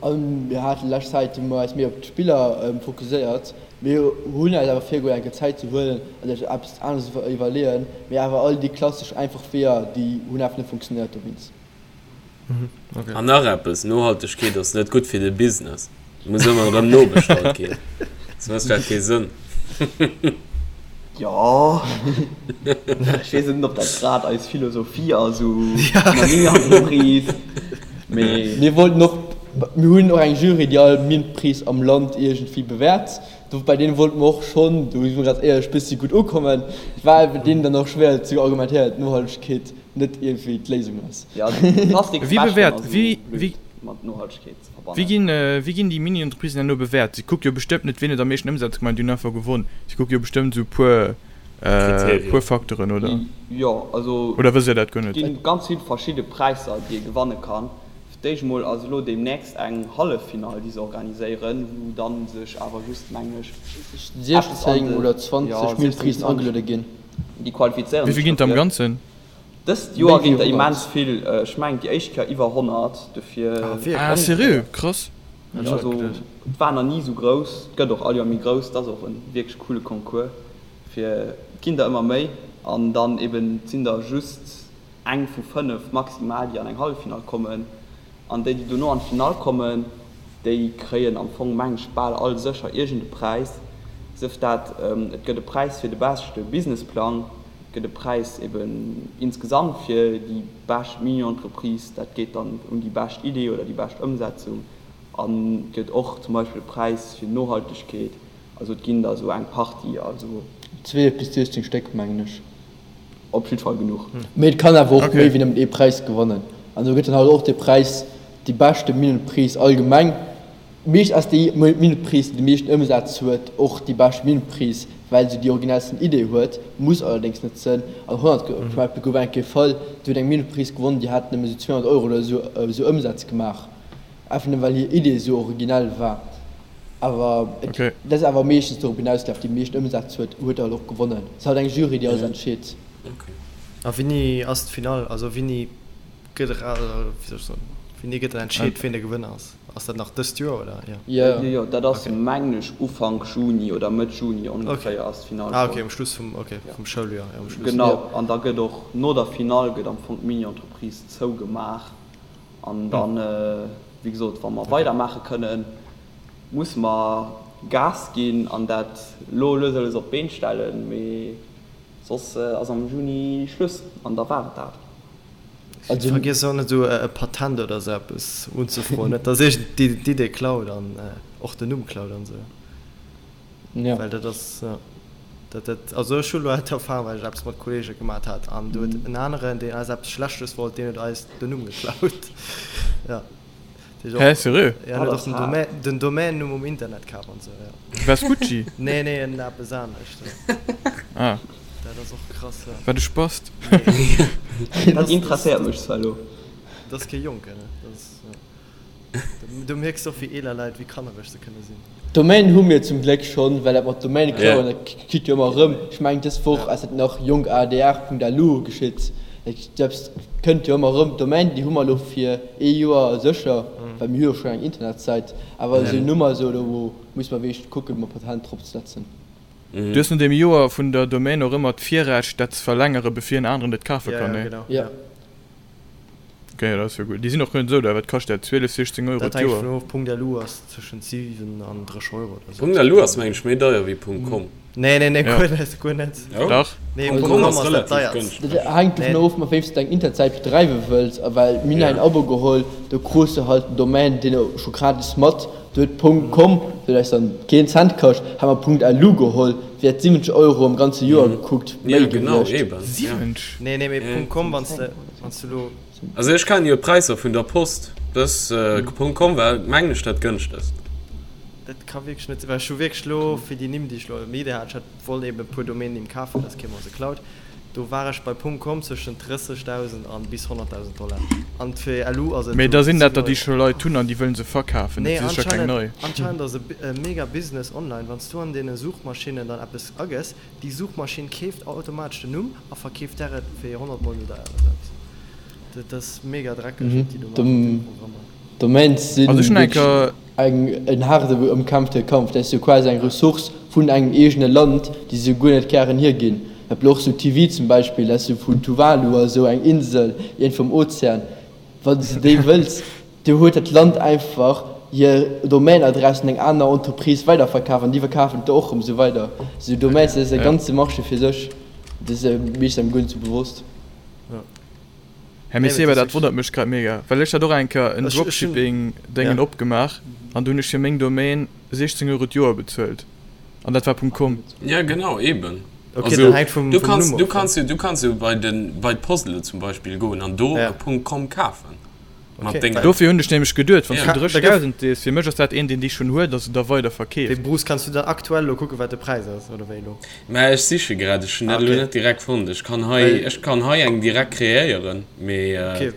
A mir hate lescht Zäit hu mer eis méi op d'Spiller fokuséiert. Mir hunn eis awer virgeholl eng Kéier Zäit ze huelen an sech eppes aneres ze iwwerleeën. Mee awer all déi klassesch einfach Weeër, déi hunn awer net funktionéiert dowéinst. An nach eppes, Nohaltegkeet ass net gutt fir de Business. Et muss ëmmer erëm nobestallt ginn, soss mécht dat kee Sënn. Jo, ech weess net, ob dat grad eis Philosophie ass u Mini-Entreprise, mee. Mir wollten och, mir hunn och eng Jury, déi all Mini-Entreprise am Land iergendwéi bewäert. Do bei deene wollte mer och schonn, do si mer ganz éierlech, bëssi gutt ukommen. Et war bei deenen dann och schwéier ze argumentéieren, datt Nohaltegkeet net iergendwéi d'Léisung ass. Jo, Plastiksbecheren ass esou blöd mat Nohaltegkeet ze verbannen. Wéi ginn, wéi ginn déi Mini-Entreprisen herno bewäert? Si kucke jo bestëmmt net, wien huet am meeschten Ëmsaz gemaach an déi hunn einfach gewonn. Si kucke jo bestëmmt esou e puer, puer Facteuren, oder? Jo, also Oder wësst Dir dat guer net? Et gi ganz vill verschidde Präisser, déi ee gewanne kann. Fir d'éischt emol ass elo deemnächst eng Halleffinall, déi se organiséieren, wou dann sech awer just, mengen ech, eppes an 16 de, oder 20 jo, 16, Mini-Entreprisen 20, ageluede ginn. déi qualifizéieren Wéi sech vill ginn et am dofir. Ganzen? Dëst Méi Joer wéi ginn der 100. immens vill, ech mengen déi éischt Kéier iwwer 100, dofir. Ah wierklech? Ah seriö? Krass. Hätt ech net Also geduecht. et war nach ni esou grouss, et gëtt och all Joer méi grouss, et ass och e wierklech coole Concours fir, et ginn der ëmmer méi an dann eben et sinn der just eng vu 5 maximal déi an eng Halleffinall kommen an déi déi dono an d'Finall kommen, déi kréien am Fong meng ech bal all sécher iergend e Präis, sëf dat et gëtt e Präis fir de beschte Businessplang, gëtt e Präis eben insgesamt fir déi bescht Mini-Entreprise, dat geet dann un déi bescht Idee oder déi bescht Ëmsetzung an et gëtt och zum Beispill e Präis fir Nohaltegkeet. Also et ginn der esou eng Partie, also. 12 bis 16 Stéck mengen ech. Op jidd Fall genuch. Mee et kann awer och méi wéi nëmmen ee Präis gewannen. An do gëtt dann halt och de Präis déi beschte Mini-Entreprise allgemeng. Meescht ass déi Minutteprise, déi de meeschten Ëmsaz huet, och déi bescht Minutteprise, well se déi originellsten Idee huet, muss allerdéngs net sënn. An 100 zum Beispill gouf eng Kéier Fall, do huet eng Minutteprise gewonnen, déi hat nëmme sou 200 Euro oder sou esou Ëmsaz gemaach, einfach nëmme well hir Idee sou originell war. Awer et dat ass awer meeschtens dorop hinausgelaf, déi meeschten Ëmsaz huet, huet halt och gewonnen. Et ass halt eng Jury, déi alles entscheet. A wéini ass d'Finall? Also wéini gëtt era, wéi soll ech soen, wéini gëtt dann entscheet, ween de Gewënner ass? Ass dat nach dëst Joer oder? Jo. Jo, jo. Jo, dat ass mengen ech Ufank Juni oder Mëtt Juni ongeféier ass d'Finall Ah, schonn. okay, um Schluss vum, okay, vum Schouljoer, jo, um Schluss. Genau, an da gëtt och no der Finall gëtt am Fong d'Mini-Entreprise zougemaach an dann, wéi gesot, wa mer weidermaache kënnen, musse mer Gas ginn an dat lo lues a lues op d'Been stellen, mee soss ass am Juni Schluss an da war et dat. Also Vergiess och net esou e Patent oder esou eppes unzefroen, net dass iergend déi d'Idee klaut an och den Numm klaut an esou. Ja. Well dat ass, jo, dat, dat, also ech hu lo d'Erfahrung, well ech eppes mat Kollege gemat hat an do huet en aneren, deen eis eppes Schlechtes wollt, deen huet eis den Numm geklaut. Jo. Hä, seriö? Ja, en huet och den Domaine, den Domaine-Numm um Internet kaf an esou, jo. Vespucci? Nee, nee, en eppes anescht, jo. Ah. Dat ass och krass, jo. Wat e Spast. Dat interesséiert mech zwar elo. Dat ass kee Jonken, ne? Dat ass, jo. Do mierks de och, wéi eeler Leit, wéi kannereg se kënne sinn. D'Domaine hu mir zum Gléck schonn, well dat mat Domaine klauen, dat kritt jo ëmmer erëm. Ech mengen dës Woch ass dat nach jonkadr.lu geschitt. Dat kënnt jo ëmmer erëm. D'Domaine déi hu mer elo fir ee Joer sécher, well mir hu jo schonn eng Internetsäit. Awer esou en Numm a sou, do muss mer wierklech kucken, mer Patent drop ze setzen. Du hues no deem Joer vun der Domaine och ëmmer d'Virrecht dat ze verlängere bevir en aneren et kafe Ja, kann, ja, nee? genau, Ja. ja. Ok, dat ass jo gutt. Déi sinn och guer net esou deier. Wat kascht dat? 12, 16 Euro Dat hänkt d'Joer? dovun of. Punkt LU ass tëschent 7 an 30 Euro oder sou. Punkt LU ass mengen ech méi deier wéi Punkt com. Nee, nee, nee, Ja. guer net, guer net. Oh? Dach. Nee, Punkt Punkt com com ass ass dat relativ deierst. gënschteg. Dat hänkt dovun Nee. of, mat wéi s de deng Internetsäit bedreiwe wëlls. A well mir hunn Ja. en Abo geholl, do krus de halt den Domaine deen scho gratis mat. Do huet Punkt com, huet eis dann keen Cent kascht, hu mer Punkt LU geholl, wär 70 Euro am ganze Joer gekuckt Ja, méi genau, gewiescht. eben. Ja. 70? Nee, nee, mee Punkt com, wann s de, wann s de lo. Also ech kennen jo d'Präisser vun der Post, dës Punkt com war mengen ech dat gënschtegst. Dat ka wierklech net sinn, well ech hu wierklech lo fir déi Nimm déi ech lo am Idee hat, ech hat wollt eben e puer Domainnimm kafen, dat ass kee mer se klaut, do war ech bei Punkt com zwëschen 30.000 an bis 100.000 Dollar an fir LU ass et Mee esou da sinn dat 7 der déi Euro. scho Leit hunn an déi wëllen se verkafen, dat Nee, si sécher keng anscheinend, nei. anscheinend ass e mega Business online, wann s du an deene Suchmaschinnen dann eppes agëss, Déi Suchmaschinn keeft automatesch den Numm a verkeeft der et fir 100 mol méi deier oder eppes. Dat ass mega dreckeg wat déi do maachen mat deene Programmer. Domains si Also ech hunn eng wierklech Kéier. eng en haarde ëmkämpfte Kampf. Dat ass jo quasi eng Ressource vun engem eegene Land, déi se guer net gären hierginn. Dat blo och sou TV zum Beispill, dat ass jo vun Tuvalu a sou eng Insel iergendwou am Ozean. Wann s de déi wëlls, Do huet dat Land einfach hir Domaine-Adress un eng aner Entreprise weiderverkaf an déi verkafen et och erëm esou weider. Esou Domaines, dat ass e ganze Marché fir sech. Dat ass meeschtens engem guer net esou bewosst. Här Messeba, dat wonnert mech grad mega, well ech hat och eng Kéier en Dropshipping-Déngen opgemaach an do hunn ech fir meng Domaine 16 Euro d'Joer bezuelt an dat war .com. Ja genau, eben. Okay, Also, dat hänkt vum, du vum kanns, Numm du of. kanns jo, du kanns jo bei den, bei d'Post elo zum Beispill goen an do Ja. e .com kafen. Mat Okay. denger. Dofir hunn ech nämlech geduet, wann s Ja. du 30.000 sees, fir mech ass dat een, deen déi schonn huet a se da weider Wéi verkeeft. Bruce, kanns du dann aktuell elo kucken, wat de Präis ass, oder wéi elo? Mä ech siche grad, ech hunn Ah, dat elo okay. net direkt fonnt. Ech kann hei, Well, ech kann hei eng direkt kreéieren, mee okay,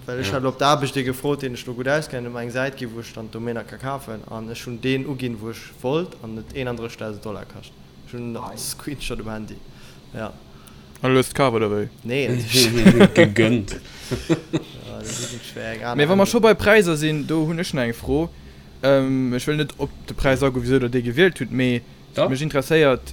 well ech ja. hat elo op der Aarbecht ee gefrot, deen ech do gutt auskennen, huet mer eng Säit ginn, wou ech dann d'Domainer ka kafen, an ech hunn deen uginn, wou ech wollt, an huet 31.000 Dollar kascht. Ech hunn nach de Screenshot um Handy, ja. An du hues et kaf, oder wéi? Nee, natierlech net. Gegönnt. Ja, dat ass net schwéier, eng aner Mee wa mer scho Ännerung. bei Präisser sinn, do hunn ech nach eng Fro. Ech wëll net op de Präis agoen, wisou der dee gewielt hutt, mee Dach. mech interesséiert,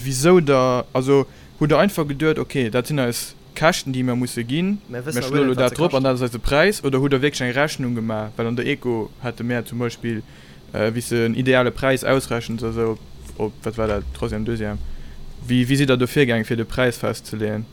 wisou der, also hutt der einfach geduet, okay, dat sinn eis Käschten, déi mer musse ginn, Mär mer wëssen schloe awer elo guer net, wat dat se drop an kaschten. dat ass eise Präis, oder hutt der wierklech eng Rechnung gemaach? Well an der Eco hate mär zum Beispill, wéi s de en ideale Präis ausrechens a sou, op, wat war dat, Troisième, Deuxième, wéi, wéi sidd der do virgaang, fir de Präis festzeleeën?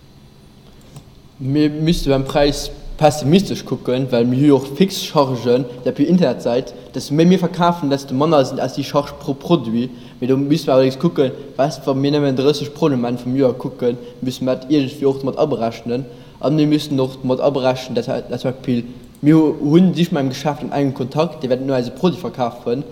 Mir misste beim Präis pessimistesch kucken, well mir hu jo och fix Chargen, dat op Internetsäit, desto méi mir verkafen, desto manner sinn eis déi Charge pro Produit. Mee do misste mer allerdéngs kucken, weißt, wa mir nëmmen 30 Produiten um Enn vum Joer kucken, müsse mer dat iergendwéi och mat aberechnen. A mir müssen och mat aberechnen, dat zum Beispill mir hunn sich mat engem Geschäft an engem Kontakt, dee wäert net eise Produit verkafen,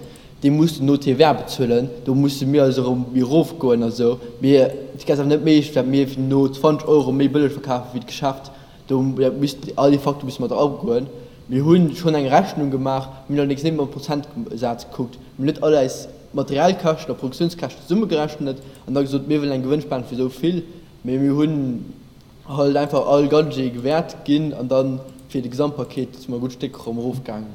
dee muss no TVA bezuelen, do musse mir also erëm méi erofgoen a sou. Mee et ass awer net méiglech, dat mir no 20 Euro méi bëlleg verkafe wéi d'Geschäft. Do missten all déi Facteure musse mat eragoen. Mir hu schonn eng Rechnung gemaach, mir hunn allerdéngs net mam Prozentsaz gekuckt. Mir hunn net all eis Materialkäschten a Produktiounskäschten zesummegerechnet an da gesot, mir wëllen eng Gewënnspan vu sou vill. Mee mir hunn halt einfach all Gadget gewäert ginn an dann fir de Gesamtpaket si mer e gutt Stéck erëm erofgaangen.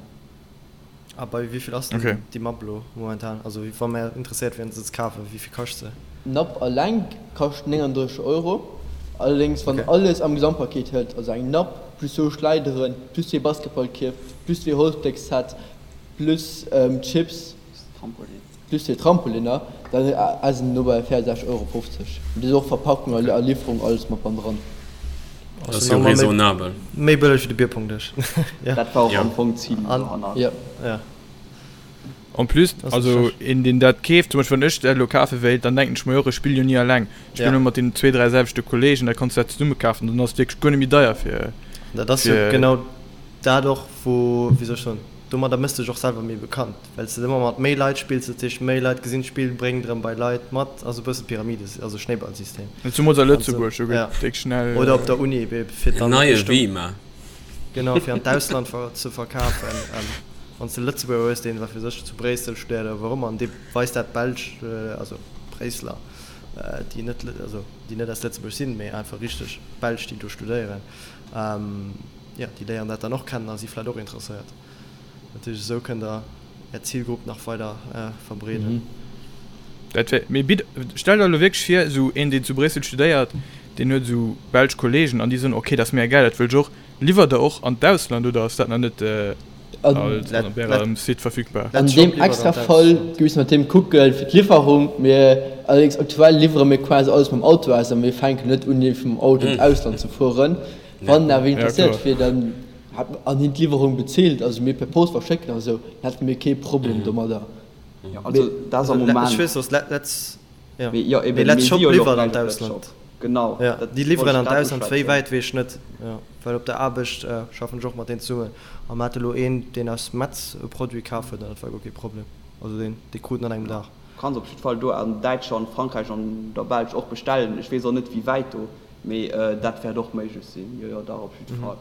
A bei wéi vill ass denn Okay. déi Mapp elo momentan? Also wa mär interesséiert wieren se ze kafen, wéi vill kascht se? D'Napp alleng kascht 39 Euro, allerdéngs wann Okay. alles am Gesamtpaket hëlt, also eng Napp plus zwou Schleideren, plus zwee Basketballkierf, plus zwee Holzbléckset, plus Chips, plus zwee Trampoliner, dann ass en no bei 64,50 Euro. Mee do ass och Verpackung a Liwwerung alles mat ban dran. Dat ass jo raisonnabel. Méi bëlleg wéi de Bierpongdësch. Dat war och Ja. am Fong d'Zil dohannert. Ja. Ja. En plus, Das ist also schlecht. een deen dat keeft, zum Beispill wann ech dat elo kafe wéilt, dann denken ech mer jo och, ech spille jo ni alleng, ech spille Ja. ëmmer mat deenen zwee, dräi selwechte Kollegen, da kanns du dat zesumme kafen, dann ass et wierklech guer net méi deier fir, Dat ass jo fir. genau dat och, wou, wéi soll ech soen, domadder méchs de dech och selwer méi bekannt, well s de ëmmer mat méi Leit spills, dat heescht méi Leit gesinn d'Spill, bréngt erëm bei Leit mat, also e bësse Pyramide, also Schnéiballsystem. Zumools a An sou, Lëtzebuerg, do ja. gëtt déck schnell. Oder op der Uni, fir En dann neie Richtung, Wima. genau, fir an d'Ausland ver ze verkafen. Wann s de Lëtzebuerger hues, deen, wat weess ech, zu Bréissel studéiert oder wou och ëmmer, an dee weist dat Belsch, also Bréisseler, déi net, also déi net aus Lëtzebuerg sinn, mee einfach richteg Belsch, déi do studéieren, jo, déi léieren dat dann och kennen a si vläicht och interesséiert. Dat heescht, esou kënnt Der Är Zilgrupp nach weider verbreeden. Dat wär, mee bitt, stell der elo wierklech vir, esou een, deen zu Bréissel studéiert, deen huet esou belsch Kollegen an déi soen, ok, dat ass mega gäil, dat wëll ech och. Liwwert der och an d'Ausland oder ass dat nach net op ärem Site verfügbar? An deem extra Fall musse mer deem kucke fir d'Liwwerung. Mir allerdéngs aktuell liwwere mir quasi alles mam Auto aus a mir fänken net un iergendwéi mam Auto an d'Ausland ze fueren. Wann awer een interesséiert wier, dann an hien d'Liwwerung bezilt, also mir per Post verschécken a sou, dann hätte mir kee Problem domadder. Jo, also dat ass am Moment. Ech weess, dass Letz, jo, mee Letz Shop liwwert an d'Ausland. Genau. Jo, déi liwweren an d'Ausland. Wéi wäit, weess ech net. Jo, well op der Aarbecht schaffen ech och mat deenen zesummen a mer hate lo een, deen aus Metz e Produit kaf huet an dat war guer kee Problem. Also deen, dee krut en an engem Dag. Du kanns op jidd Fall do an Däitschland, Frankräich an der Belsch och bestellen. Ech weess och net, wéi wäit do, mee dat wäert och méiglech sinn. Jo, jo, dach, op jidd Fall.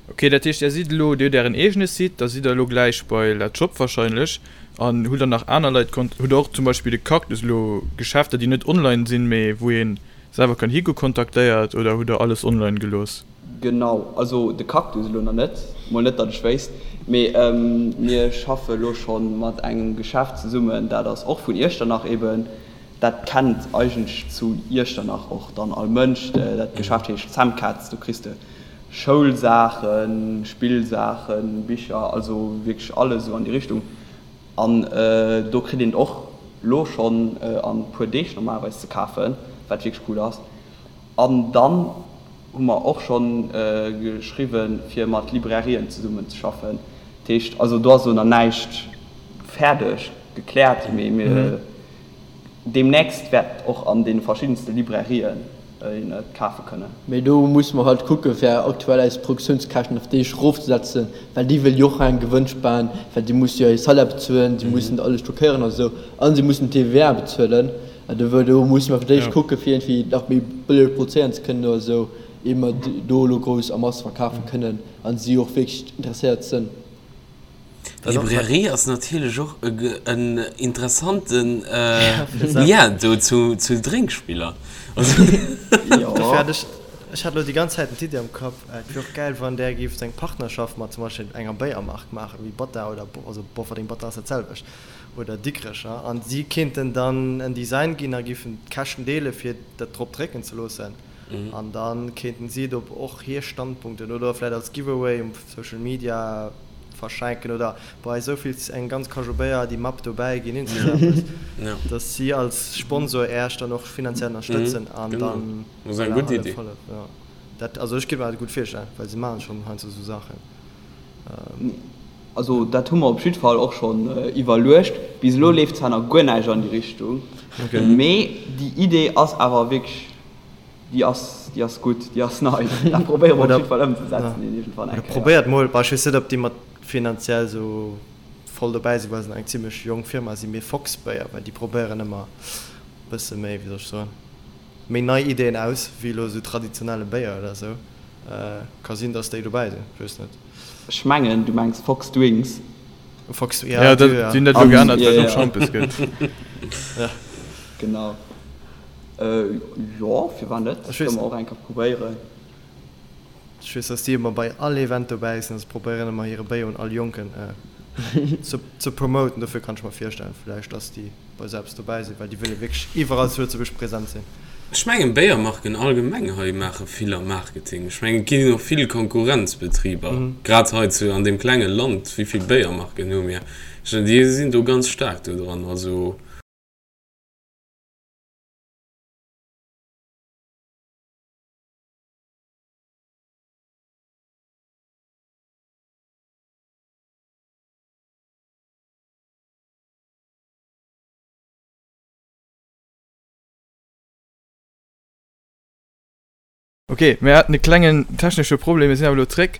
Ok, dat heescht Är sidd elo, Dir hutt Ären eegene Site, da sidd Der elo gläich bei LetsShop wahrscheinlech an hutt der nach aner Leit kont-, hutt der och zum Beispill de Cactus elo Geschäfter déi net online sinn, mee wou ee selwer kann higo kontaktéiert oder hutt der alles online gelooss? Genau, also de Cactus elo nach net, mol net datt ech wéisst, mee mir schaffe elo scho mat engem Geschäft zesummen, dat ass och vun Iechternach eben, Dat kennt eigentlech zu Iechternach och dann all Mënsch. Dat Geschäft heescht Semcats. Do kriss de Schoulsaachen, Spillsaachen, Bicher, also wierklech alles esou an déi Richtung. An do kritt een et och lo schonn an e puer Deeg normalerweis ze kafen, wat wierklech cool ass. An dann hu mer och schonn geschriwwen, fir mat Librairien zesummen ze schaffen. Dat heescht, also do ass elo nach näischt fäerdeg gekläert, mee mir Deemnächst wäert och an deene verschiddenste Librairien een et kafe kënnen. Mee do musse mer halt kucke fir aktuell eis Produktiounskäschten op déi erofzesetzen, well déi wëlle jo och eng Gewënnspan, well déi musse jo hir Salaire bezuelen, si mussen alles stockéieren a sou a si mussen d'TVA bezuelen. An do do musse mer fir d'éischt kucke fir iergendwéi nach méi bëlleg produzéieren ze kënnen oder sou, ier mer do elo grouss a Masse verkafe kënnen a si och wierklech interesséiert sënn. Librairie ass natierlech och en interessanten Lien do zu Drénkspiller. Dofir hat ech, ech hat elo déi ganz Zäit d'Iddi am Kapp, et wier och gäil wann där géift eng Partnerschaft mat zum Beispill enger Béiermark maachen, wéi Bata oder, also Bofferding, Bata ass dat selwecht, oder Dikrecher, an si kéinten dann en Design ginn a géifen d'Käschten deele fir dat drop drécken ze loossen. An da kéinten si et op och hir Standpunkten oder vläit als Giveaway um Social Media verschenken oder bei esou vill eng ganz Kajou Béier déi Mapp dobäi ginn, iergend esou eppes, dass si als Sponsor Äech dann och finanziell ënnerstëtzen an dann voilà, hëllef, hëllef, jo. Dat, also ech kéint mer dat gutt virstellen, well si maachen schonn heiansdo esou Saachen. Also dat hu mer op jidd Fall och schonn iwwerluecht. Bis elo leeft zwar nach guer näischt an déi Richtung, mee déi Idee ass awer wierklech Déi ass, déi ass gutt, déi ass nei. Dat probéiere mer op jiddwer Fall ëmzesetzen iergendwann eng Kéier. Probéiert mol, bah ech weess net ob déi mat finanziell esou voll dobäi sinn, well se nach eng zimlech jonk Firma sinn, mee Fox Béier, well déi probéieren ëmmer e bësse méi, wéi soll ech soen, méi nei Ideen aus wéi elo esou traditionelle Béier oder esou. Ka sinn, datt déi dobäi sinn, ech weess net. Ech mengen du mengs Fox Drinks. Fox, ja, ja, dat, déi hunn dat elo geännert, well et och Schampes gëtt. Genau. Jo, firwat net? Dat kënne mer och eng Kéier probéieren. Ech weess, dass déi ëmmer bei all Event dobäi sinn a se probéieren ëmmer hire Béier un all Jonken ze promoten. Dofir kann ech mer virstellen, vläicht, dass déi bei esou eppes dobäi sinn, well déi wëlle wierklech iwwerall zu Lëtzebuerg present sinn. Ech mengen, Béiermarken allgemeng hei maache vill am Marketing. Ech mengen, et ginn och vill Konkurrenzbetriber, grad hei zu an deem klenge Land. Wéi vill Béiermarken hu mir? Ech mengen, déi sinn do ganz staark do dran. Also. Ok, mir haten e klengen technesche Problem, mir sinn awer elo zréck.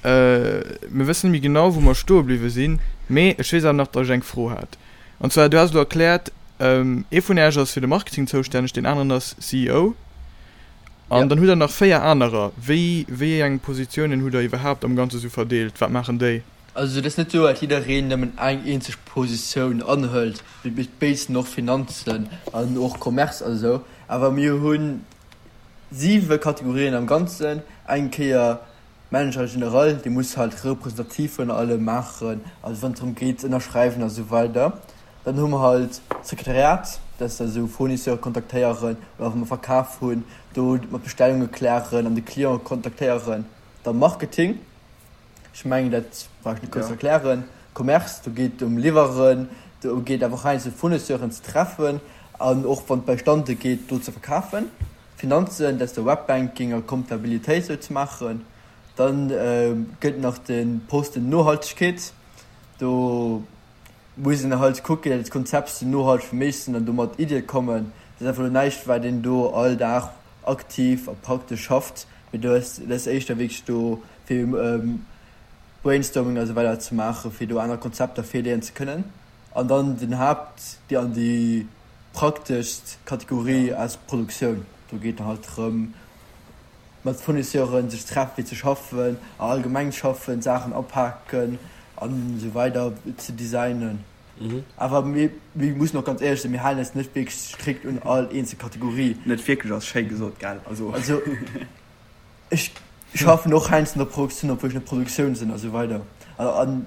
Mir wëssen net méi genau wou mer stoe bliwwe sinn, mee ech weess awer nach, datt ech eng Fro hat. An zwar, du has elo erkläert, ee vun Äech ass fir de Marketing zoustänneg, deen aneren ass CEO. An dann hutt der nach 4 anerer. Wéi, wéi eng Positiounen hutt der iwwerhaapt am Ganze sou verdeelt? Wat maachen déi? Also et ass net sou, dat jiddereen nëmmen eng eenzeg Positioun anhëlt. Mir béid sinn och Finanzen an och Commerce a sou, awer mir hunn siwe Kategorien am Ganzen. Eng Kéier Manager général, dee muss halt representativ vun allem maachen, also wann et drëm geet ze ënnerschreiwen a sou weider. Dann hu mer halt d'Sekretariat. Dat ass da sou Fournisseure kontaktéieren oder wa mer verkaf hunn, do mat Bestellunge klären an de Client kontaktéieren. Da Marketing, ech mengen dat brauch ech net grouss erklären. Commerce, do geet et ëm Liwweren, do geet awer och heiansdo Fournisseuren ze treffen an och wann et bei Stande geet do ze verkafen. Finanzen, dat ass da Webbanking a Comptabilitéit sou ze maachen. Dann gëtt nach de Posten Nohaltegkeet, do muss een halt kucken, datt d'Konzept sou nohalteg wéi méiglech sinn an do mat Iddie kommen. Dat ass einfach elo näischt, wat een do all Dag aktiv a praktesch schafft, mee do ass dat ass éischter wierklech do fir Brainstorming a sou weider ze maachen, fir do aner Konzepter virleeën ze kënnen. An dann den Haapt déi an déi prakteschst Kategorie ass d'Produktioun. Do geet halt drëm, mat Fournisseuren sech treffen fir ze schaffen a allgemeng schaffen, Saachen apaken an esou weider ze designen. Awer mir mussen och ganz éierlech sinn, mir halen eis net wierklech strikt un all eenzel Kategorie. Net wierklech ass schéi gesot, gell? Also ech schaffen och heiansdo an der Produktioun, obwuel ech net Produktioun sinn a sou weider. An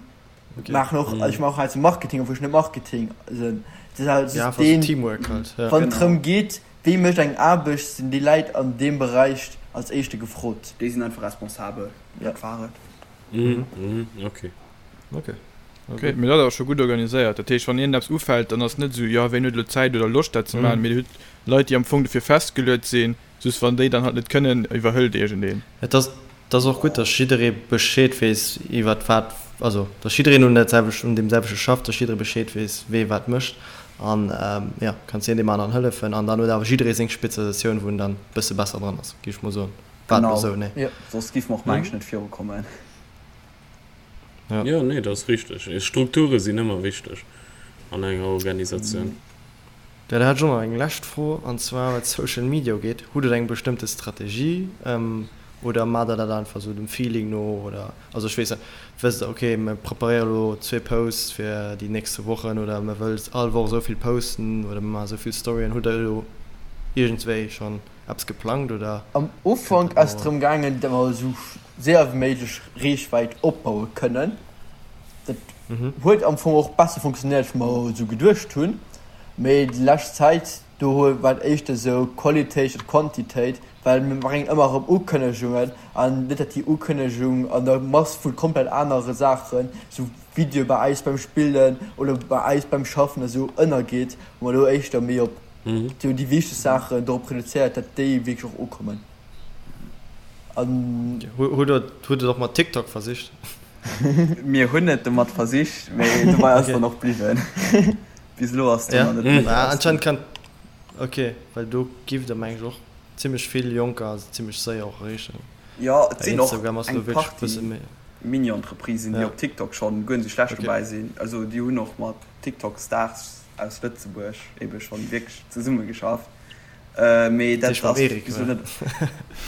maachen och, also ech maachen och heiansdo Marketing, obwuel ech net Marketing sinn. Et ass halt just deen, wann et drëm geet, Wee mécht eng Aarbecht, sinn déi Läit an deem Beräich als éischte gefrot. Déi sinn einfach responsabel, dat war et. Ok. Ok. Ok, mee dat ass scho gutt organiséiert. Dat heescht, wann iergendeppes ufält, dann ass net esou, jo, ween huet elo Zäit oder Loscht dat ze maachen, mee dir hutt Leit, déi am Fong dofir festgeluet sinn. Just wann déi dann halt net kënnen, iwwerhëlt iergendeen. Et ass Et ass och gutt, dass jidderee Bescheed weess iwwert wat, also dass jiddereen un dat selwecht, un deem selwechte schafft, dass jidderee Bescheed weess, wee wat mécht an jo, kanns een deem aneren hëllefen an dann huet awer jidderee seng Spezialisatioun, wou en dann e bësse besser dran ass, géif ech mol soen. War et elo esou? Nee? Genau, soss géife mer och mengen ech net virukommen. Ja. Jo, nee, dat ass richteg. Strukture sinn ëmmer wichteg an enger Organisatioun. Jo, da hätt ech och nach eng lescht Fro, an zwar wat Social Media ugeet. Hutt Der eng bestëmmte Strategie oder maacht Der dat einfach esou dem Feeling no oder, also ech weess net, wësst Der, okay, mir preparéiere elo zwee Posts fir déi nächste Wochen oder mir wëllt all Woch esou vill posten oder mir maache esou vill Storyen. Hutt Der elo iergendswéi schonn eppes geplangt oder Am kënnt Ufank dat ass et no? drëm gaangen, datt mer esou séier wéi méiglech Reechwäit opbaue kënnen. Dat huet am Fong och besser funktionéiert, wéi mer esou geduecht hunn. Mee déi lescht Zäit, do war et éischter esou Qualitéit statt Quantitéit, well mir bréngen ëmmer erëm Ukënnegungen an net, datt déi Ukënnegung an der Mass vu komplett anere Saachen, esou Videoe bei eis beim Spillen oder bei eis beim Schaffen esou ënnergeet, wou mer elo éischter méi op déi wichteg Saachen dorop reduzéiert, datt déi wierklech och ukommen. An. Hutt Der et och mat TikTok versicht? Mir hunn et domat versicht, mee dobei ass dann och bliwwen. Bis elo ass do nach net méi raus. Anscheinend kann, ok, well do giff der meng ech och zimmlech vill Jonker zimmlech séier och erreechen. Jo, et sinn och eng Partie Mini-Entreprisen, déi op TikTok schonn guer net esou schlecht dobäi sinn. Also déi hunn och mat TikTok-Stars aus Lëtzebuerg ebe schonn wierklech zesummegeschafft. Mee dat ass bis elo net,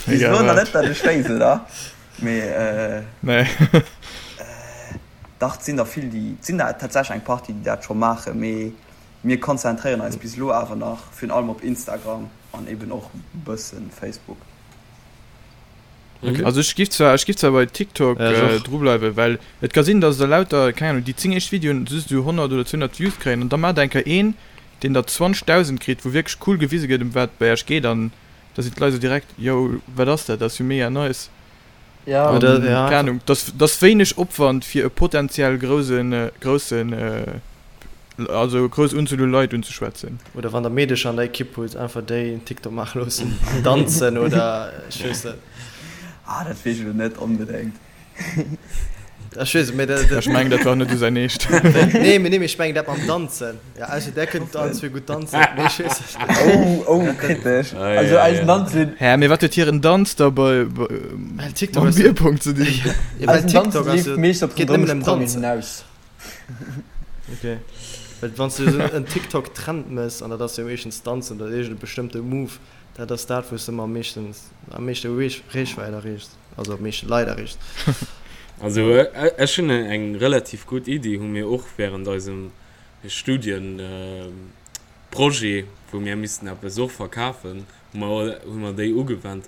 bis elo nach net, dat ech weess, oder? Mee Nee. Dach, et sinn der vill, déi, et sinn der tatsächlech eng Partie, déi dat scho maachen. Mee mir konzentréieren eis bis elo awer nach virun allem op Instagram an eben och e bësse Facebook. Okay. Also ech giff zwar, ech giff zwar bei TikTok ja, äh, dru bleiwen, well et ka sinn, dass der lauter, keng Ahnung, déi 10 éischt Videoen just esou 100 oder 200 Views kréien an da maacht eng Kéier een, deen der 20.000 kritt, wou wierklech cool gewise gëtt, ëm wat et bei iech geet an da sinn d'Leit esou direkt, yo, wat ass dat, dat ass jo mega nice. Ja. An, Oder, ja. Keng Ahnung, dass, dass wéineg Opwand fir e potenziell groussen, groussen, also grouss Unzuel u Leit unzeschwätzen. Oder wann der Meedecher an der Ekipp hutt, einfach déi en TikTok maache loossen, danzen oder ech weess net. Ah, dat weess ech elo net onbedéngt. Ech weess et, mee dat. Ech mengen, dat war net esou säin Eescht. Nee, mee nee, mee ech mengen dat mam Danzen. Ja, also där kënnt allen zwee gutt danzen, mee ech weess et net. Oh, oh, kritesch. Also eisen Danzen. Hä, mee wat huet hiren Danz da bei, Well TikTok mam Bierpong ze dinn? Ja, well Eisen Danzen TikTok ass leeft jo, meescht op geet nëmmen den ëm Drëmmsprangen Danzen. hinaus. Ok, well wann s du esou en TikTok-Trend mëss, an dat ass jo meeschtens Danzen oder iergend e bestëmmte Move, dat ass dat, wou s de ëmmer am meeschtens, am meeschte Reechwäit erreechs. Also meeschte Leit erreecht. Also ech hunn eng relativ gutt Iddi, hu mir och während eisem Studienprojet, wou mir missten eppes och verkafen, hu mer hu mer déi ugewennt.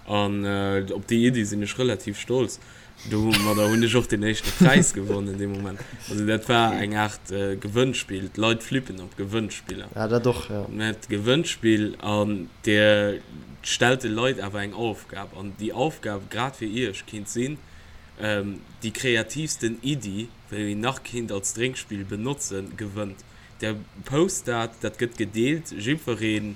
An op déi Iddi sinn ech relativ stolz. Domadder hunn ech och den éischte Präis gewonnen dee Moment. Also dat war eng Aart Gewënnspill. D'Leit flippen op Gewënnspiller. Ja, dat och, jo. Mä d'Gewënnspill, an Dir stellt de Leit awer eng Aufgab. An déi Aufgab, grad fir Iech, kinnt sinn, déi kreativsten Iddi, wou een nach kinnt als Drénkspill benotzen, gewënnt. Der post dat, dat gëtt gedeelt, jiddweree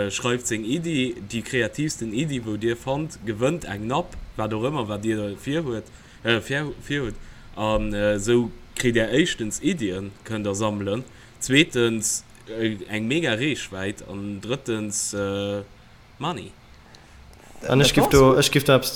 schreift seng Iddi, déi kreativsten Iddi wou dir fannt, gewënnt eng Napp, wat och ëmmer wat dir virhuet, virhutt. An esou kritt där éischtens Iddien, kënnt der sammelen, zweetens eng mega Reechwäit an drëttens Money. An ech giff do, ech giff do eppes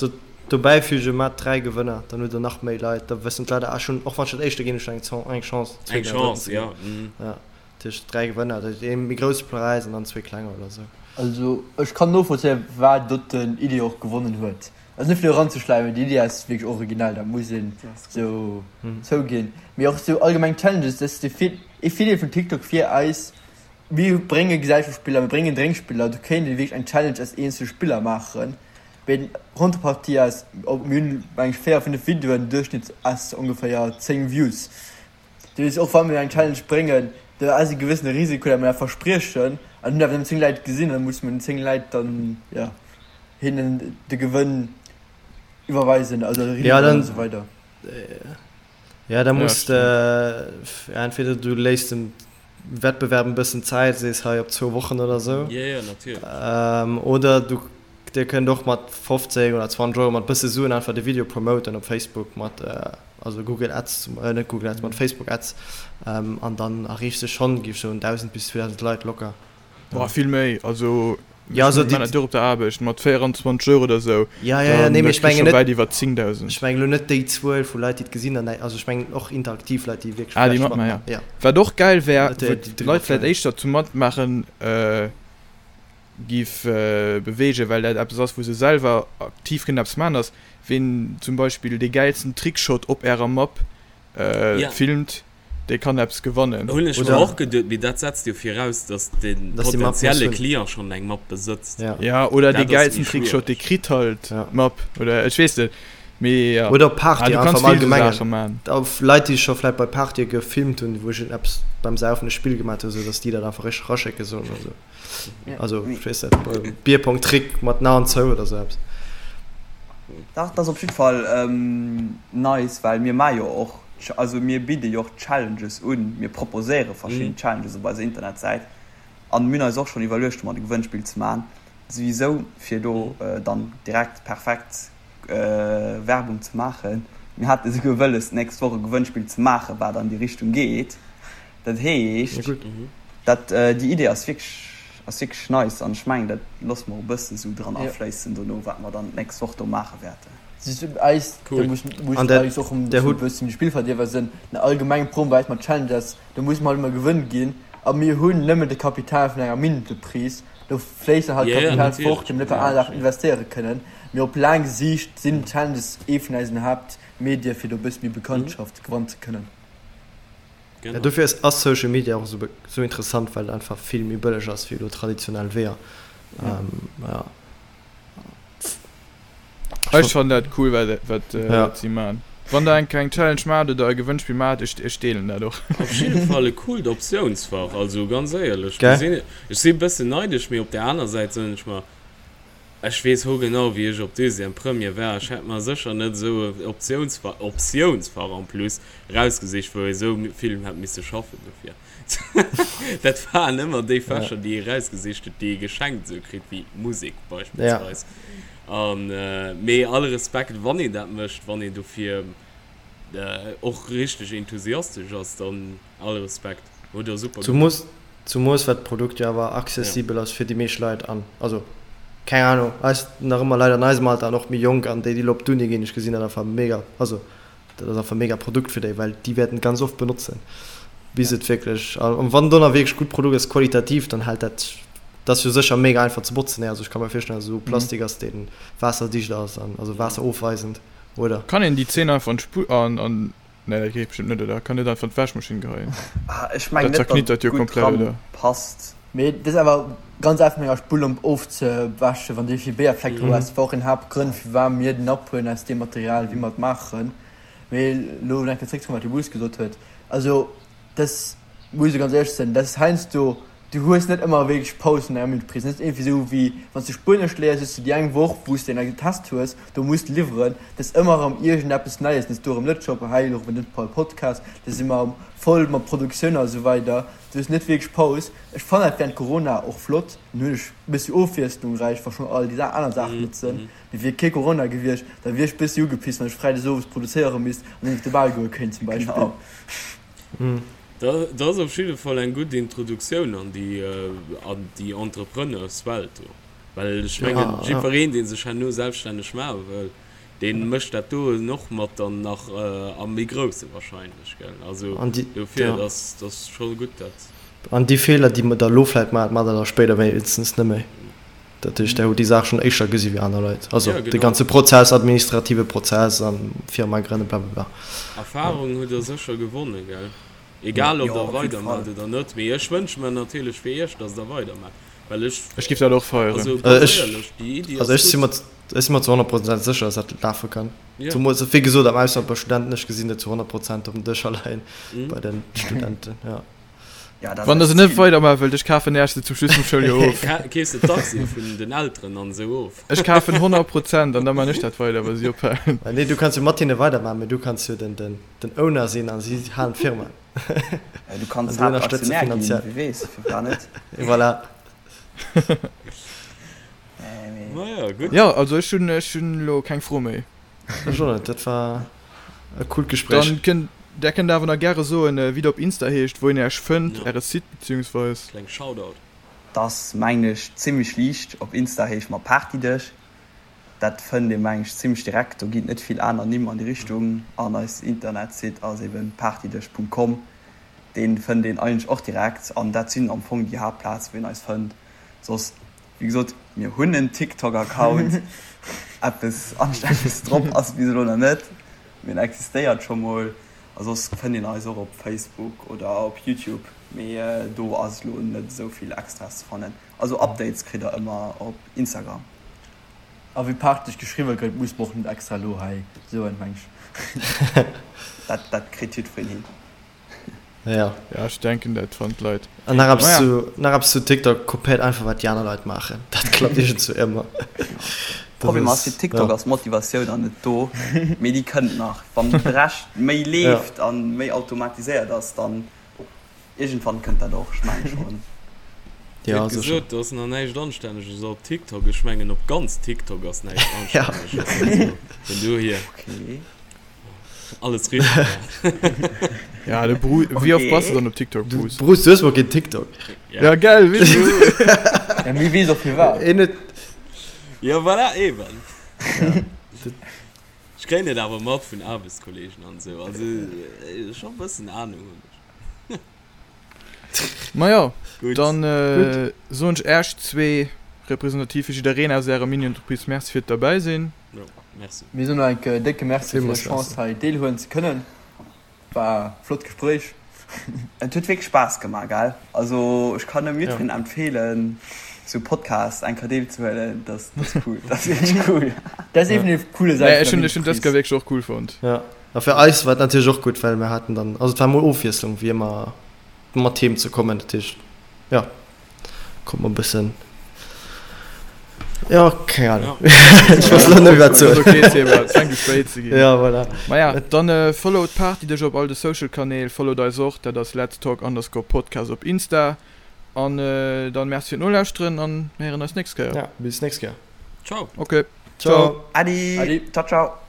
dobäi fügen, Maat 3 Gewënner, dann hutt der nach méi Leit, da wëssen d'Leit, ah ech hunn, och wann ech dat éischte ginn, ech hunn eng Chance, Eng zweeten oder drëtten Chance, ze ginn. jo. Ja, dat heescht 3 Gewënner, dat heescht ee méi grousse Präis an dann zwee klenger oder sou. Also ech kann novollzéien firwat doten Idee och gewonnen huet. Also net fir do eranzeschläimen, déi Idee ass wierklech originell, dat muss een sou zouginn. Mee och sou allgemeng Challenges, dat ass de ee Virdeel vun TikTok fir eis, Mir brénge Gesellschaftsspiller, mir bréngen Drénkspiller, do kéint ee wierklech eng Challenge aus eenzele Spiller maachen. Mee d'Contrepartie ass, mir hunn meng ech 4, 5 Videoen, Duerchschnitt ass ongeféier 10 Views. Dat heescht, och wa mir eng Challenge bréngen, do ass e gewëssene Risiko, datt mir dat verspriechen an hunn awer nëmmen 10 Leit gesinn an da musse mir den 10 Leit dann, jo, hinnen de Gewënn iwwerweisen, also eriwwer an esou weider. Ja, da muss de, entweder du léiss dem Wettbewerb en bëssen Zäit, sees hei op zwou Wochen oder sou. Jo, jo, natierlech. Oder du, dir kënnt och mat 15 oder 20 Euro, mat bësse Suen einfach de Video promoten op Facebook mat, also Google Ads, net Google Ads, mat Facebook Ads, an dann erreechs de schonn, géif ech soen, 1.000 bis 2.000 Leit locker. Boah, vill méi, also Ja, also déi. Ech op der Aarbecht mat 24 Euro oder sou, Ja, ja, ja, nee, mee ech mengen net. Wäit iwwer 10.000. Ech mengen elo net déi Zuel vu Leit, déi et gesinn an, also ech mengen och interaktiv Leit, déi wierklech Ah, déi matmaachen, ja. Ja. Wat och gäil wär, wou d'Leit vläicht éischter zum Matmaachen giff beweegen, well dat eppes ass, wou se selwer aktiv kënnen eppes maachen, ass, ween zum Beispill dee gäilsten Trickshot op ärer Map filmt. Dee kann eppes gewannen. Hunn ech mer och geduet, mee dat setzt jo viraus, dass de potenzielle Client schonn eng Mapp besëtzt. Ja, oder dee gäilsten Trickshot, dee kritt halt d'Mapp, oder ech weess net, mee ja. Oder op Partye einfach am Allgemengen. Leit, déi scho vläit bei Partye gefilmt hunn, wou ech eppes beim Saufen e Spill gemaat hunn, esou dass déi dat einfach richteg eraschécke sollen oder sou. Also, ech weess net, Bierpong-Trick mat den Aen zou oder sou eppes. Dach, dat ass op jiddwer Fall nice, well mir maache jo och Also mir bidde jo och Challenges un, mir proposéiere verschidden Challenges op eiser Internetsäit an mir hunn eis och schonn iwwerluecht domat e Gewënnspill ze maachen, souwisou fir do dann direkt perfekt Werbung ze maachen. Mir hate souguer wëlles d'nächst Woch e Gewënnspill ze maachen, wat an déi Richtung geet. Dat heescht, dat déi Idee ass wierklech ass wierklech nice an ech mengen dat loosse mer och e bëssen esou dran afléissen dono, wat mer dann d'nächst Woch do maache wäerten. Eis, da muss muss eis och um e bëssen de Spillverdierwer sinn. Den allgemengen Problem bei eis mat Challenge ass, do muss mer halt ëmmer Gewënn ginn a mir hunn nëmmen de Kapital vun enger Minuteprise. Do fléisst dann halt Kapital fort, déi mer net bei aner Saachen investéiere kënnen. Mee op laang Siicht sinn Challenges ee vun eisen Haaptmedie fir do e bësse méi Bekanntschaft gewannen ze kënnen. Ja, dofir ass ass Social Media och esou esou interessant, well et einfach vill méi bëlleg ass wéi elo traditionell Weeër. Ja. Ech fannen dat cool wat wat ja. si man. Wann der eng eng Challenge maacht oder e Gewënnspill maacht, ech ech deelen dat och. Op jidde Fall e coolt Optiounsfach, also ganz éierlech, Gell? gesinn, ech si e bëssen neidesch, mee op der aner Säit soen ech mer, ech weess hogenau wéi ech op Deuxième, Première war, ech hätt mer sécher net esou e Optiounsfach, Optiounsfach en plus, erausgesicht wou ee sou vill hätt misse schaffen dofir. Dat waren ëmmer déi Fächer, déi ee rausgesicht huet, déi ee geschenkt esou kritt, wéi Musek beispillsweis. An, mee all Respekt, wann een dat mécht, wann een dofir och richteg enthusiastesch ass, dann all Respekt, hutt der super gemaach. Zumoos well d'Produkt jo awer accessibel ass fir déi meescht Leit an, also keng Ahnung, eis nach ëmmer Leit an eisem Alter an och méi jonk an déi, déi elo op d'Uni ginn, ech gesinn dat einfach mega, also Dat ass einfach e mega Produkt fir déi, well déi wäerten et ganz oft benotzen, bis et wierklech, an wann do nach wierklech gutt Produkt ass, qualitativ, dann hält dat, dat ass jo sécher mega einfach ze botzen, also ech ka mer virstellen, dass et esou Plastik ass, dee waasserdicht ass an also waasserofweisend, oder? Kann een déi Zeen einfach an d'Spull, an, an, nee dat geet bestëmmt net, oder? Kann net einfach an d'Wäschmaschinn geheien? Ah, ech mengen Dat net, datt zerknittert et jo gutt komplett, dran oder? passt. Mee dat ass awer ganz einfach mat enger Spullomp ofzewäschen, wann du vill Béierfleck dru hues. Dat war och een Haaptgrënn, firwat mir den Napp huelen aus deem Material, wéi mer et maachen. Mee elo nach eng Kéier zréckzekommen, wat de Bruce gesot huet, also dat muss ech ganz éierlech sinn, dat ass heiansdo, du hues net ëmmer wierklech Paus an enger Entreprise. Dat ass iergendwéi esou wéi wann s de Spuenesch léiers, hues du déi eng Woch, wou s de en Test hues, do muss de liwweren. Dat ass ëmmer erëm iergendeppes Neies, dann ass do erëm net Job, hei elo erëm den Podcast, da si mer voll mat Produktioun a sou weider. Du hues net wierklech Paus. Ech fannen dat während Corona och flott, dann hunn ech e bëssi Ofwiesslung, wa schonn all déi aner Saachen net sinn. Mee wier kee Corona gewiescht, da wier ech bëssi ugepisst, wann ech freides owes produzéiere misst an net op de Bal goe kéint zum Beispill. Dat ass op jidde Fall eng gutt Introduktioun an déi an déi Entrepreneurswelt do. Well ech mengen, jiddwereen, dee sech herno selbststänneg maache wëll, dee mécht dat do och mat dann nach am méi Grousse wahrscheinlech, gell? Also dofir, dat ass, dat ass scho gutt dat. An déi Feeler, déi mer da elo vläicht maachen, maacht Der da spéider wéinstens net méi. Dat heescht, Der hutt déi Saach schonn éischter gesi wéi aner Leit. Also de ganze Prozess, administrative Prozess a Firma grënnen, blablabla. Erfahrung hutt Der sécher gewonnen, gell? Egal ob Der weidermaacht oder net. Mee ech wënsche mer natierlech fir Iech, datt Der weidermaacht, well ech. Ech géif dat och feieren. Also ganz éierlech, déi Iddi ass gutt. Also ech si mer zu 100 Prozent sécher, datt dat lafe kann. Zemools, wéi gesot, am Ausland bei Studenten. Ech gesinn dat zu 100 Prozent op den Dëscher leien bei de Studenten, jo. Wann der se net weidermaache wëllt, ech kafen Äech se zum Schluss vum Schouljoer of. Keefs de d'Aktie vun den Elteren an esou of? Ech kafen 100 Prozent an da maan ech dat weider, wa si ophalen. Nee, du kanns jo mat hinne weidermaachen, mee du kanns jo den Owner sinn a si halen d'Firma. Du kanns Haaptaktionär ginn, wie weess, firwat net? Voilà. Maja, gutt. Jo, also ech hunn elo keng Fro méi. Ech och net, dat war e coolt Gespréich. Dann kënnt, där kënnt awer nach gäre soen, wéi der op Insta heescht, wou een Äech fënnt, Äre Site beziehungsweis. Kleng Shoutout. T'ass mengen ech zimmlech liicht, op Insta heesche mer Partydësch, dat fënnt ee mengen ech zimmlech direkt, do ginn et net vill aner Nimm an déi Richtung an eis Internetsite ass eben partydësch.com, deen fënnt een eigentlech och direkt an dat sinn am Fong déi Haaptplaze wou een eis fënnt, soss Wéi gesot, mir hunn en TikTok-Account. Eppes Anstänneges drop ass bis elo nach net, mee en existéiert scho mol. A soss fënnt een eis och op Facebook oder op YouTube, mee do ass elo net esou vill Extraes ze fannen. Also Updates kritt der ëmmer op Instagram. A wéi Partyg geschriwwe gëtt, muss mer och net extra elo hei soen, meng ech. Dat kritt jiddwereen hin. Ja. Ja, ech denken dat fannen d'Leit. An nach eppes zu, nach eppes zu TikTok, kopéiert einfach wat déi aner Leit maachen. Dat klappt iergendzwou ëmmer. Problem ass, fir TikTok ass d'Motivatioun nach net do, mee déi kënnt nach. Wann de Rescht méi leeft an méi automatiséiert ass, dann iergendwann kënnt dat och, ech mengen schonn. Dir hutt gesot, do ass nach näischt Anstänneges op TikTok. Ech mengen op ganz TikTok ass näischt Anstänneges. Also vun dohier. Alles richtig gemaach. Ja, de Bru wéi oft bass du dann op TikTok, Bruce? Bruce, du hues mol keen TikTok. Ja, gell, weess du. Ja, mee weess och firwat. Een huet. Ja, voilà, eben. Ech kréien et awer mat vun Aarbechtskollegen an esou. Also, scho e bëssen Ahnung hunn ech. Majo, dann soen ech Äech zwee representativ fir jiddereen aus Ärer Mini-Entreprise Merci fir d'Derbäisinn. Jo, merci. Mir soen och enke décke Merci fir d'Chance hei deelhuelen ze kënnen. War e flott Gespréich. Et huet wierklech Spaass gemaach, gell? Also ech kann nëmme jiddwereen empfeelen sou Podcast eng Kéier deelzehuelen. Dat ass cool, dat ass wierklech cool. Dat ass eben déi coole Säit vun der Ech hunn dës Kéier wierklech och cool fonnt. Jo, a fir eis war et natierlech och gutt, well mir haten dann, also et war mol Ofwiesslung wéi ëmmer mat Themen ze kommen, dat heescht jo. Kommt mer bëssen. Jo, keng Ahnung. Ech weess elo net méi wat soen. Okay, Seba, et fänkt u spéit ze ginn. Ja, voilà. Maja, dann followt d'Party dech op all de Social Kanäl, followt eis och, dat ass Let's Talk underscore Podcast op Insta. An dann merci fir d'Nolauschteren an mir héieren eis nächst Kéier. Ja, bis nächst Kéier. Ciao. Okay, ciao. Adi. Adi. Ciao, ciao.